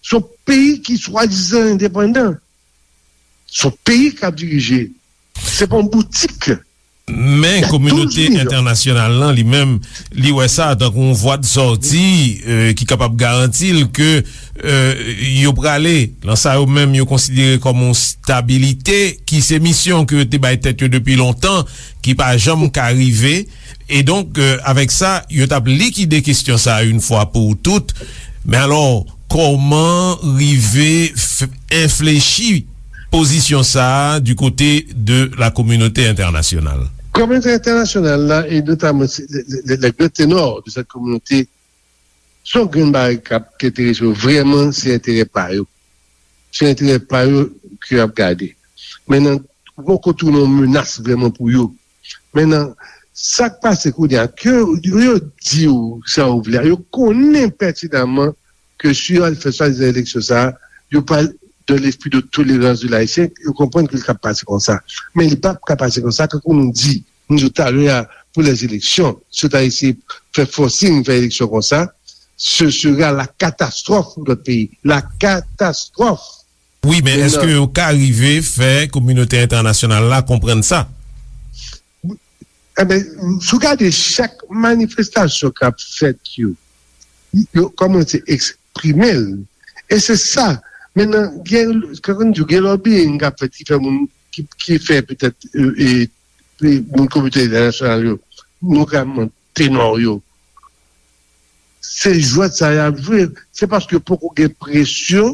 Se yon peyi ki swadizan endepandan. Se yon peyi k ap dirije. Se pa yon boutik. Men kominote entènasyonal lan, li menm, li wè sa tankou yon vwa de sòti, euh, ki kapab garanti l ke, euh, yo prale nan sa yo menm yo konsidere kòm yon stabilite, ki se misyon ke yo te bay tèt yo depi lontan, ki pa janm ka rive. E donk, euh, avèk sa, yo t ap likide kesyon sa a yon fwa pou tout. Men alò, kòman rive f-, enflechi pozisyon sa a du côté de la communauté internationale? Kominote entènasyonal la, e notaman se, le, le, le, le gran tenor de cette communauté, se yon grenn bagay k ap enterese yo vrèman, se enterè pa yo. Se enterè pa yo ke y ap gade. Men nan, ou poko tounen yon menas vrèman pou yo. Men nan, sa k pase kounye a, ke yo, yo di w sa yo vle a, yo konnen pètinaman ke si yo al fè swadizan eleksyon sa a, yo pral dans l'esprit de tolérance de l'Haïtien, yo konprann ke l ka pase konsa. Men li p ap ka pase konsa, kankou nou di, nou di talè a, pou les élections, si yo ta eseye fè forcing, fè eleksyon konsa, ce sera la catastrophe pour notre pays. La catastrophe. Wi, men èske yo ka rive fè kominote entènasyonal la konprann sa? Eben, si w gade chak manifestasyon k ap fèt yo, yo kòmanse eksprime l. E se sa. Mentnan, gen, kòm di, gen lobbying k ap fèt ki fè moun, ki, ki fè petèt, e, e, e moun kominote entènasyonal yo, notaman tenò yo. Se jwèt sa y ap jwe. Se paske poko gen presyon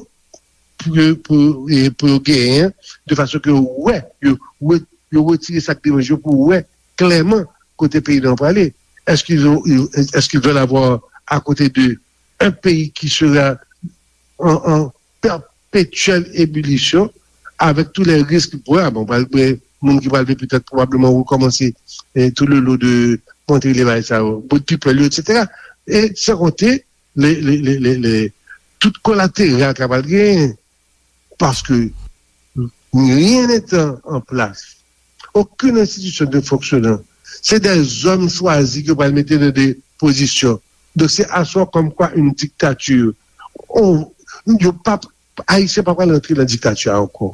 pou, pou, e, pou yo genyen, de fason ke yo wè, yo, yo, yo retire sa k deranje yo pou wè klèman kote peyi nou an prale. Est-ce qu'ils ont, est-ce qu'ils veulent avoir à côté d'eux un pays qui sera en, en perpétuelle ébullition avec tous les risques? Bon, pral gen moun ki pral vin petèt pwobableman rekòmanse, eh, tout le lot de montre le bagay sa yo, bout people yo, et cetera. E san konte le, le, le, le, le, tout kolateral k ap al genyen. Paske rien n'étant en place, aucune institution ne fonctionnant, se des hommes choisis ke pral mete nan de pozisyon. Donk, se aswa comme quoi une dictature. On, yo p ap, Ayisyen pa pral antre nan diktati a ankò.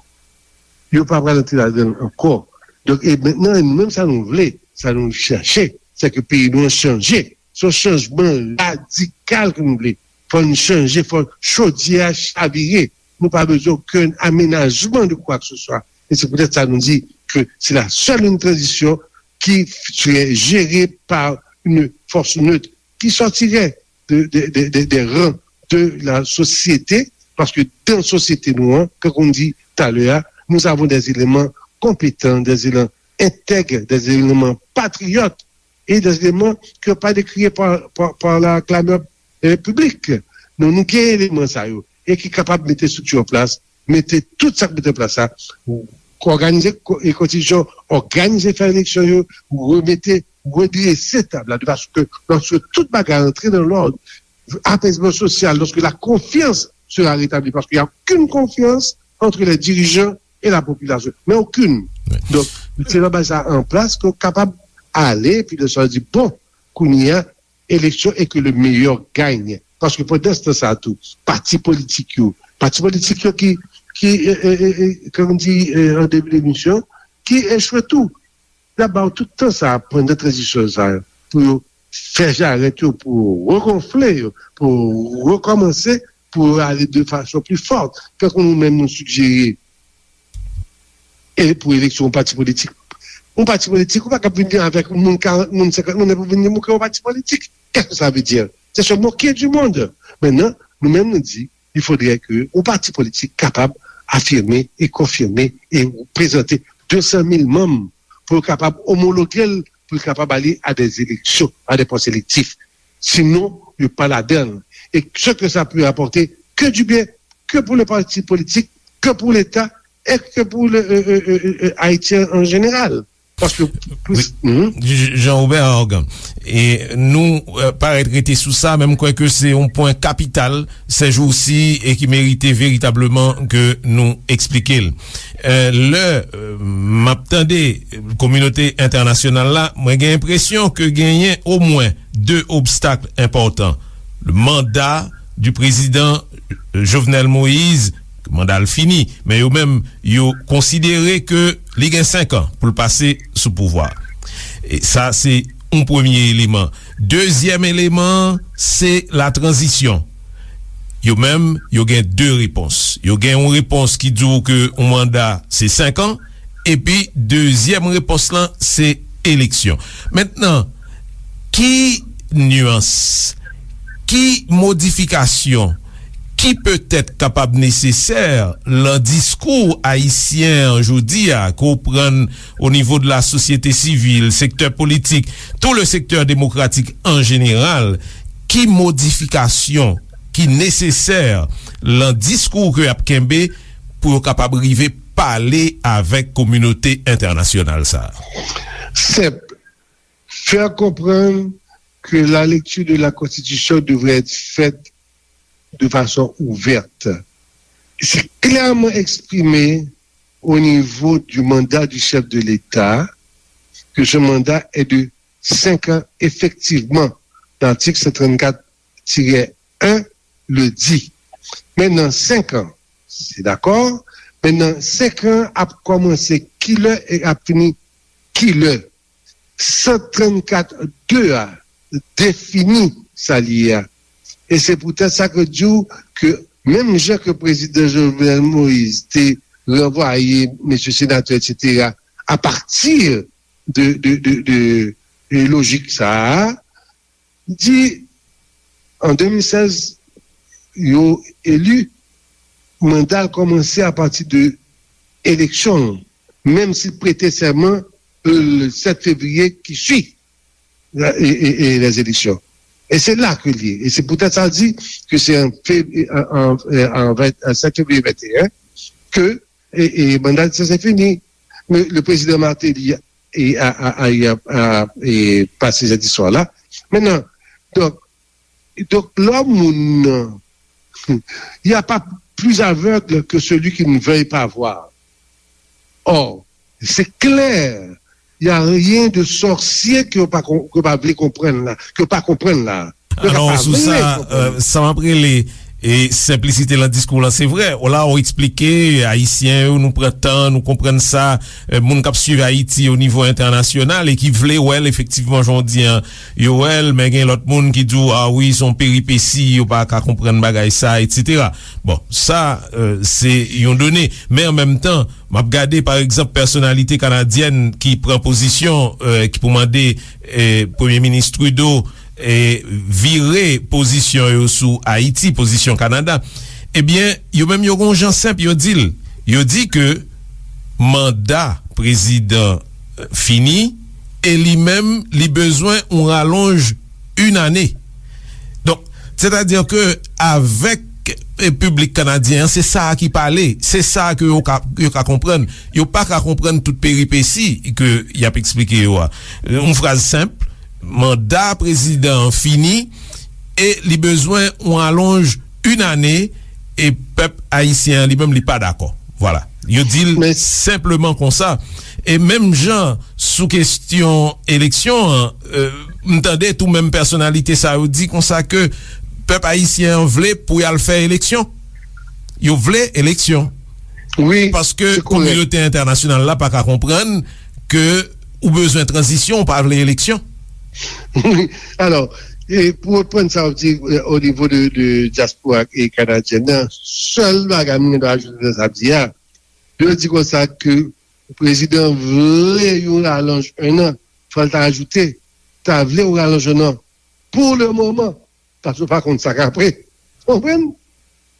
Yo pa pral antre ladan l ankò. Donk, e mentnan, nou menm sa nou vle, sa nou chèche, se ke peyi nou an chanje. Se yon chanjman radikal ke nou vle. Fò n chanje, fò chodyè a chavire. Nou pa bezwen okenn amenajman de kwa ke se swa. E se poutèt sa nou di ke c'est la seule une transition qui serait gérée par une force neutre qui sortirait de, de, de, de, des rangs de la société, paske dan sosyete nou an, kankou m di talè a, nous avons des éléments compétents, des éléments intègres, des éléments patriotes, et des éléments qui n'ont pas décrié par, par, par la clameur, euh, publique. Nou, nou gen eleman sa yo, e ki kapab mete estrikti an plas, mete tout sa k mete an plas la, òganize ko-, e konstitisyon, òganize fè eleksyon yo, remete, redrese tab la, de fason ke lòske tout bagay antre nan lòd, apezman sosyal, lòske la konfyans sera retabli, paske y a okenn konfyans entre les dirigeants et la population, men okenn. Donk, se nan baz sa an plas ke w kapab ale, epi lè sa w di, bon, kounye a, eleksyon e ke le meilleur gagne. Paske pandan se tan sa a tou, pati politik yo, pati politik yo ki, ki, e, e, e, e, kòm di, e, an debi demisyon, ki echwe tou. Y ap ba yo tout tan sa a pandan tranzisyon sa a pou yo fè jarèt yo, pou yo regonfle yo, pou yo rekòmanse, pou yo ale de fason pli fòt. Kankou nou menm nou sigjere e pou eleksyon yon pati politik. Yon pati politik, ou pa kab vin avèk moun karant moun, senkant moun, epi w vin di m ou kreye yon pati politik. Qu'est-ce que ça veut dire? C'est se moquer du monde. Mentnan, nou menm nou di, il faudrait que yon pati politik kapab afime e konfime e prezante de san mil manm pou yo kapab omologe l, pou l kapab ale a des élections, a des postes électifs. Sinon, yo pa ladan l. E ce que ça peut apporter, que du bien, que pour le parti politique, que pour l'État, et que pour le, euh, euh, euh, euh, Haïtien en général. Paske plis, mhm. J-, Jean Robert Organ, e nou, euh, parèt rete sou sa, men m kwè ke se yon pwen kapital sèjousi e ki merite veritableman ke nou eksplike l. Euh, lè, euh, m ap tande kominote entènasyonal la, mwen gen enpresyon ke genyen omwen de obstak enpòtan. Le mandat du président Jovenel Moïse, manda l fini, men yo menm, yo konsidere ke li gen senk an pou l pase sou pouvwa. E sa, se yon premye eleman. Dezyèm eleman, se la tranzisyon. Yo menm, yo gen de repons. Yo gen yon repons ki di w ke yon manda, se senk an, epi dezyèm repons lan, se eleksyon. Mentnan, ki nyans, ki modifikasyon ki petèt kapab nesesè lan diskou ayisyen an jodi a, ke w pran o nivo de la sosyete sivil, sektè politik, tout le secteur démocratique en général, ki modifikasyon ki nesesè lan diskou ke y ap kenbe pou yo kapab rive pale avèk kominote entènasyonal sa a? Senp. Faire comprendre que la lecture de la Constitution devrait être faite de façon ouverte. C'est clairement exprimé au niveau du mandat du chef de l'État que ce mandat est de cinq ans. Effectivement, l'article cent trente-quatre tiret un le di. Men nan senk an, se dakò, men nan senk an ap kòmanse kilè e ap fini kilè. San trannkat de a defini sa li ye a. E se poutèt sa ke di w ke menm jan ke prezidan Jovenel Moïse te ranvwaye mesye senatè, etsetera, apati de, de, de, de, de lojik sa a, di an de mil sèz, yo eli, manda l kòmanse apati de eleksyon, menm si l prete sèman le sept février qui suit la, et, et, et les élections. E se la ke l ye. E se poutèt sa l di ke se an, an, an, an, an sept février vingt et un ke e, e manda l se fini. Men le prezidan Martelly e, a, a, a, a, a, e, pase sèt istwa la. Mentnan, donk, donk, lè moun nan, il n'y a pas plus aveugle que celui qui ne veuille pas voir. Or, c'est clair, il n'y a rien de sorcier ke yo pa, ke yo pa vle konprann la, ke yo pa konprann la. Alò, sou sa, sa m ap rele e senplisite lan diskou lan, se vre, la ou eksplike Ayisyen yo, nou pran tan, nou konprann sa, e, moun k ap swiv Ayiti o nivo entènasyonal e ki vle wè l efektivman, jan w di an, yo wè l, men gen lòt moun ki di w, a wi, se yon peripesi, yo pa ka konprann bagay sa, etsetera. Bon, sa, e, se yon done. Men an menm tan, m ap gade, pa egzanp, pèsonalite kanadyèn ki pran pozisyon, e, ki pou mande, e, Premye Minis Trudeau, e, vire pozisyon yo sou Ayiti, pozisyon Kanada, ebyen, yo menm yo gen yon jan senp, yo di l, yo di ke manda prezidan, e, fini, e li menm, li bezwen yon ralonj yon ane. Donk, sètadi ke avèk, e, piblik kanadyen an, se sa a ki pale, se sa a ke yo ka, yo ka konprann. Yo pa ka konprann tout peripesi ke y ap eksplike yo a. Yon fraz senp, manda prezidan an fini e li bezwen yon alonj yon ane e pèp ayisyen an li menm li pa dakò. Vwala. Yo di l senpleman konsa. E menm jan sou kesyon eleksyon an, e, m tande tou menm pèsonalite sa yo di konsa ke pèp ayisyen an vle pou y al fè eleksyon. Yo vle eleksyon. Paske kominote entènasyonal la pa ka konprann ke ou bezwen tranzisyon, ou pa vle eleksyon. Wi, alò, e pou reprann sa w di, e, o nivo de, de dyaspora e kanadyèn nan, sèl bagay mwen gen dwa ajoute nan sa w di a, yo di konsa ke prezidan vle yon ralonj en an, fò l ta ajoute, ta vle yon ralonj en an, pou le moman, paske w pa konn sa k apre. Ou konprann?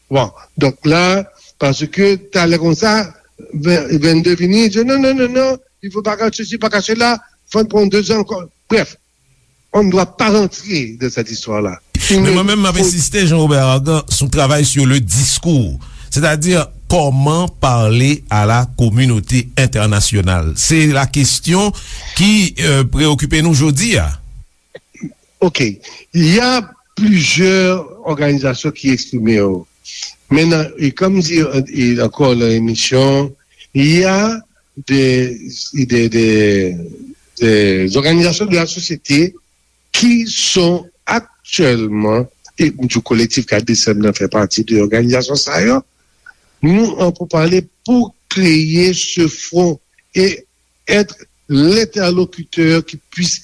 Bon, donk la, paske talè konsa, ven, vennde vini, di, non, non, non, non, il faut pas que ceci, pas que cela, faut prendre deux ans encore. Bref, on ne doit pas rentrer dans cette histoire-là. Men mwen menm, m ap ensiste, Jean Robert Argan, sou travay sur le discours. Sètadi, kòman pale a la kominote entènasyonal? Se la kesyon ki, e, preokipe nou jodi a. Ok. Il y a plusieurs organisations qui expriment. Maintenant, et comme dit, euh, et encore dans l'émission, il y a des, des, des, des organisations de la société qui sont actuellement, et du collectif K D C M nan fait partie de l'organisation ça, nous, on peut parler pour créer ce front et être l'interlocuteur qui puisse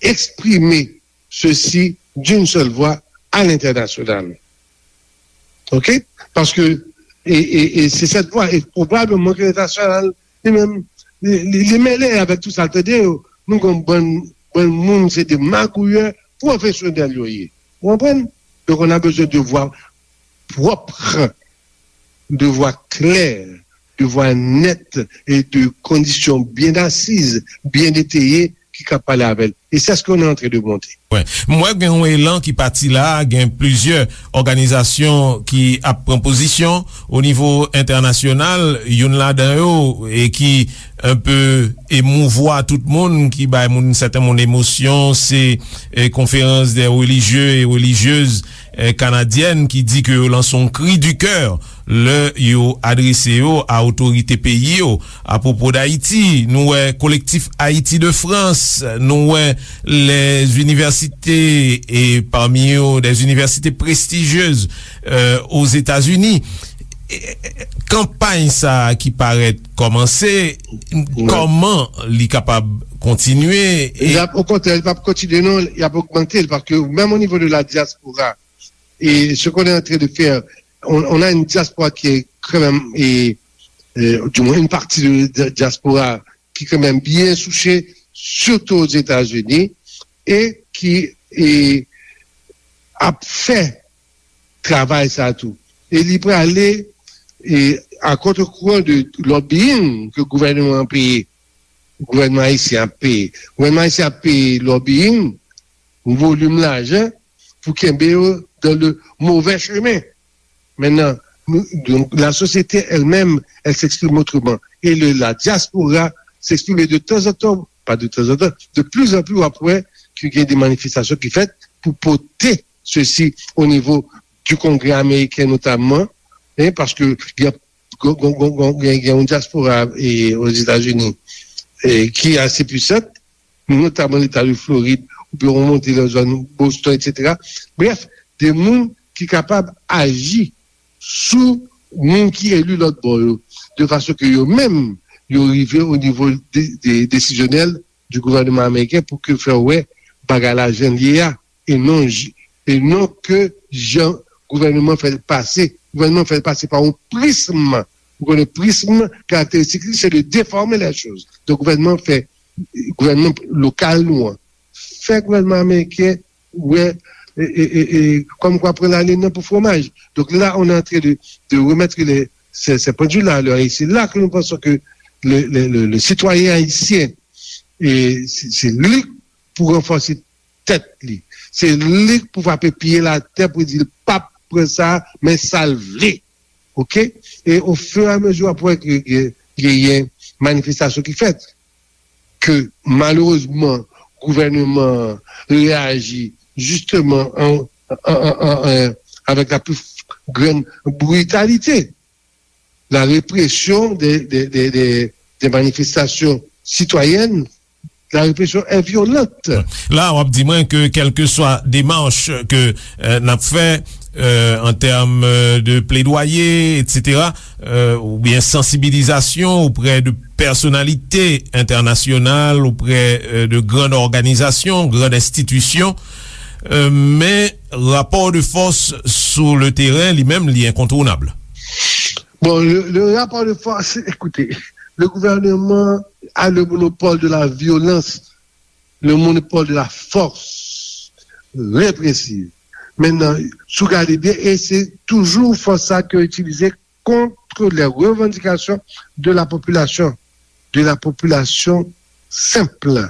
exprimer ceci d'une seule voix à l'international. Ok? Paske, e, e, e se sèt vwa, e pwobableman ke entènasyonal, li menm, li, li, li mele avèk tout sa l tande yo. Nou gen yon bann, bann moun, se de magouyè pwofesyonèl yo ye. Ou konprann? Donk, on a besoin de voir. propre, de voix claire, de voix nette et de conditions bien assises, bien étayées, ki ka pale avè l. Et c'est ce qu'on est en train de monter. Wi. M wè gen yon elan ki pati la, gen plizyè òganizasyon ki ap pran pozisyon o nivo entènasyonal, youn ladan yo, e ki enpe emouvwa tout moun, ki bay moun, sèten moun emosyon, se, e, Conférence des religieux et religieuses, e, canadienne, ki di ke yo lanse yon cri du cœur lè yo adrese yo a otorite peyi yo. Apwopo d Ayiti, nou wè Kolektif Ayiti de Frans, nou wè les universités, e pami yo, des universités prestigieuses, euh, aux États-Unis. E, e, kanpay sa a ki parèt kòmanse, kòman li kapab kontinye? E l ap, okontrè, li p ap kontinye, non, li ap ogmante, paske menm o nivo de la diaspora, et ce qu'on est en train de faire, on, on a une diaspora qui est quand même, et, euh, du moins une partie de, de diaspora qui est quand même bien souciée, surtout aux États-Unis, et qui, et, ap fè travay sa tou. E li prale, e, a contre-courant de lobbying ke gouvènman an peye. Gouvènman ayisyen ap peye. Gouvènman ayisyen ap peye lobbying, yon volim lajan pou kenbe yo dans le mauvais chemin. Maintenant, nous, donc, la société elle-même, elle s'exprime autrement. Et le, la diaspora s'exprime de temps en temps, pas de temps en temps, de plus en plus, après, qu'il y a des manifestations qui faites pour porter ceci au niveau du Congrès américain notamment, hein, parce que il y a gen, gen, gen, gen, gen yon diaspora, e, Ozetazini, e, ki ase pwisan, notaman Leta de Florid, oubyen w monte nan zòn Boston, etsetera. Brèf, de moun ki kapab aji sou moun ki eli lòt bò yo, de fason ke yo menm, yo rive o nivo de, de, desizyonèl du gouvènman ameriken pou ke fè wè bagay la jan l ye a, e non j-, e non ke jan gouvènman fè l pase. Gouvènman fè l pase pa yon prism. Ou konnen prism, karakteristik li, se de déformer les choses. Donk, gouvènman fè, gouvènman lokal nou an, fè gouvènman ameriken wè, e, e, e, e, kòm kwa pran lalin nan pou fwomaj. Donk, la, on est en train de, de remettre les, ces, ces pendules-là à l'heure. Et c'est là que nous pensons que le, le, le, le citoyen haïtien, e, se, se li pou ranfòse tèt li. Se li k pou frape pye l atè pou di l p ap pran sa, men sa l vle. Oke? E ofiramezi w ap wè ke gen, genyen manifestasyon ki fèt, ke malerezman gouvènman an reyaji jisteman an, an, an, an, an, avèk la pli grann britalite. La répression des, des, des, des, des manifestations citoyennes, la répression est violente. La, w ap di mwen ke kèlkeswa demach ke, euh, n ap fè, euh, an tèm, euh, de pledwaye, etsetera, euh, oubyen sansibilizasyon oprè de pèsonalite entènasyonal, oprè, euh, de grann òganizasyon, grann enstitisyon, euh, men rapò de fòs sou le teren, li menm, li enkontounab. Bon, le, le rapport de force, écoutez, le gouvernement a le monopole de la violence, le monopole de la force répressive. Maintenant, si w gade byen, e se toujou fòs sa ke itilize contre les revendications de la population, de la population simple.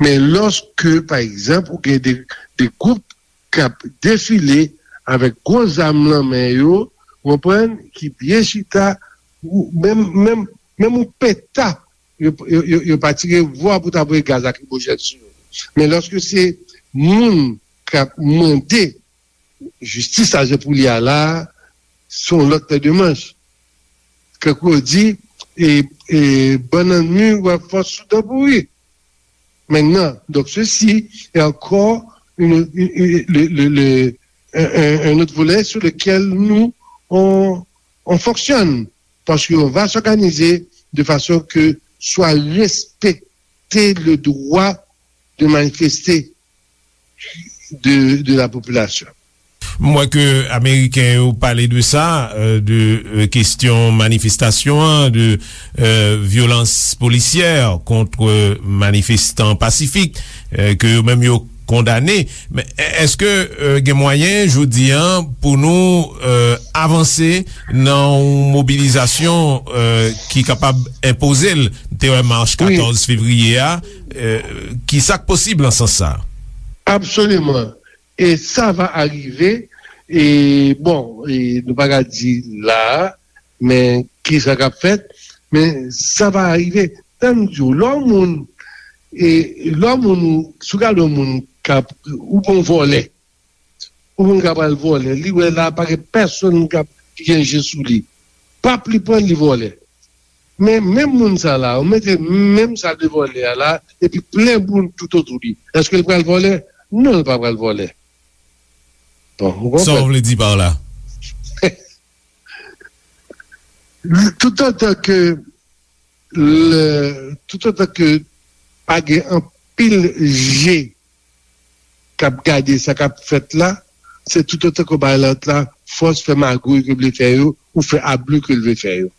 Men lòske, pa egzanp, ou gen de, de gwoup k ap defile avèk gwo zam nan men yo, w konprann, ki byen chita, ou menm, menm, menm yon peta, yo, yo, yo, yo pa tire vwa pou ta voye gaz lakrimojèn sou yo. Men lòske se moun k ap mande jistis la jan pou li a la, se yon lòt pè de manch. Tankou yo di, e, e, bannann mi wè fòs sou dan pouri. Maintenant, donc ceci est encore une, une, une, le, le, le, un, un, un autre volet sur lequel nous, on, on fonctionne. Parce qu'on va s'organiser de façon que soit respecté le droit de manifester de, de la population. M wè ke Ameriken yo pale de sa, euh, de, euh, kesyon manifestasyon an, de, euh, vyolans polisyè kont, euh, manifestan pasifik, euh, ke yo menm yo kondane. Men, èske, euh, gen mwayen, jodi a, pou nou, euh, avanse nan yon mobilizasyon, euh, ki kapab enpoze l. Te wè mach katòz fevriye a, euh, ki sa k posib nan sans sa? Absoliman. E sa va arive, e bon, e nou pa ka di la a, men ki sa k ap fèt, men sa va arive. Tann di w, lè yon moun, e lè yon moun, si w gade yon moun k ap, ou bon vòlè, ou moun k ap al vòlè, li wè la pa gen pèsonn k ap, ki gen je sou li. Pap li pran li vòlè. Men menm moun sa la, ou mete menm sa de vòlè a la, epi plen moun tout otou li. Èske l pral vòlè? Non, l pa pral vòlè. Bon, ou konprann? Sa w vle di pa la? Toutotan ke le, toutotan ke pa gen anpil je k ap gade sa k ap fèt la, se toutotan ke w bay lòt la fòs fè magouy ke l vle fè yo, ou fè abli ke l vle fè yo.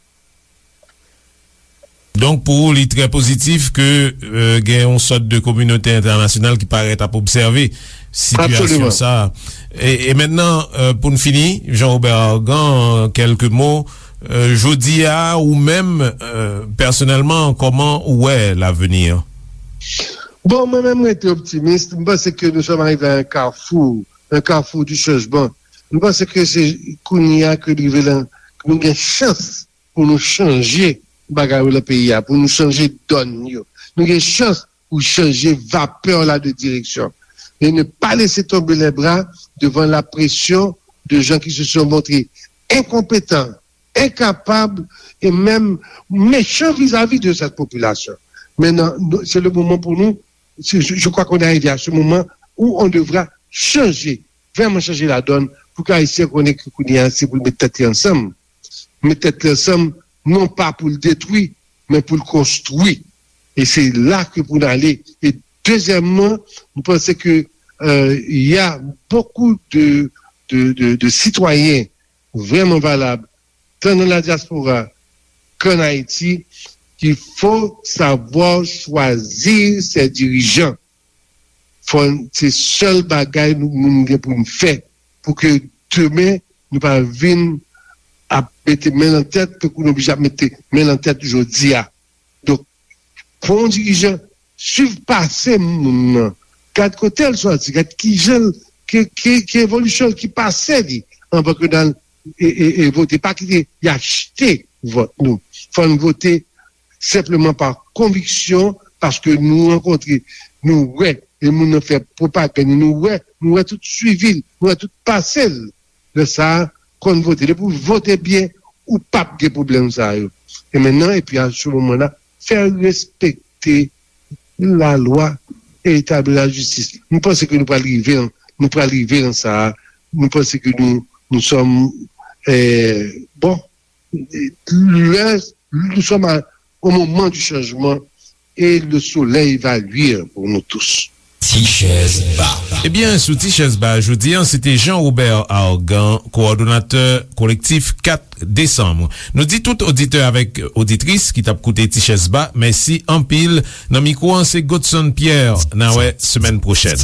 Donk, pou ou, li trè pozitif ke, euh, gen yon sòt de kominote entènasyonal ki parèt ap obsève sitiyasyon sa a. E, e mentnan, euh, pou n fini, Jean Robert Argan, kèlke mo, euh, jodi a, ou menm, euh, pèsonèlman, kòman ou wè lavni? Bon, mwen menm, mwen rete optimis. M panse ke nous sommes arrivés à un carrefour, un carrefour du changement. M panse ke se kounye a ke nou rive lan, ke nou gen chans pou nou chanje bagay yo lan peyi a, pou nou chanje dòn yo. Nou gen chans pou chanje vapè la de direksyon. Et ne pas laisser tomber les bras devant la pression de gens qui se sont montrés incompétents, incapables et même méchants vis-à-vis de cette population. Maintenant, nous, c'est le moment pour nous, c'est- je, je crois qu'on est arrivé à ce moment où on devra changer, vraiment changer la donne, pou ke Ayisyen konnen ke kounye a, se pou l met tèt li ansanm. Met tèt li ansanm, non pa pou l detwi, men pou l konstwi. E se la ke pou n ale. E dezyèmman, nou panse ke, euh, il y a beaucoup de, de, de, de citoyens vraiment valables, tant dans la diaspora qu'en Haïti, qu'il faut savoir choisir ses dirigeants. Fò n, se sèl bagay nou, nou gen pou n fè, pou ke demen nou pa vin ap mete men nan tèt, tankou nou oblije ap mete men nan tèt jodi a. Donk, pran yon dirijan, swiv pase moun nan, gad kote l sòti, gad ki jan l, ki, ki, ki evolisyon l, ki pase li, anvan ke n al e, e, e vote. Pa kite y achte vòt nou. Fò n vote senpleman pa konviksyon, paske nou rankontre, nou wè, e moun nan fè pwopagann, nou wè, nou wè tout swivi l, nou wè tout pase l. Lè sa a, konn vote. Depi w vote byen, ou p ap gen pwoblèm sa yo. E mentnan, epi a se moman la, fè respekte lalwa e etabli lajistis. Nou panse ke nou pral rive, nou pral rive nan sa a. Nou panse ke nou, nous sommes, euh, bon, lè, nous sommes à, au moment du changement et le soleil va luire pour nous tous. Ti chèz ba. Ebyen, sou Ti chèz ba jodi a, se te Jean Robert Argan, kowòdonatè kolektif kat desanm. Nou di tout oditè avèk oditris ki t ap koute Ti chèz ba, mèsi anpil. Nan mikwo an, se Godson Pierre. N a wè semèn pwochèn.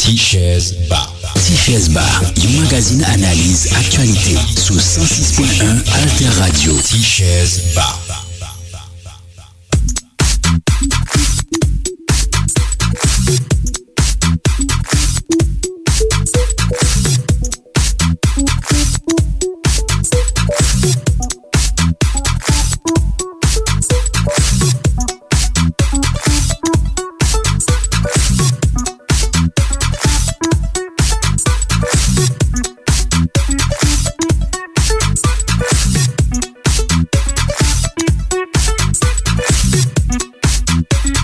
Ti chèz ba. Ti chèz ba, yon magazin analiz aktyalite sou san sis pwen en Alter Radio. Ti chèz ba.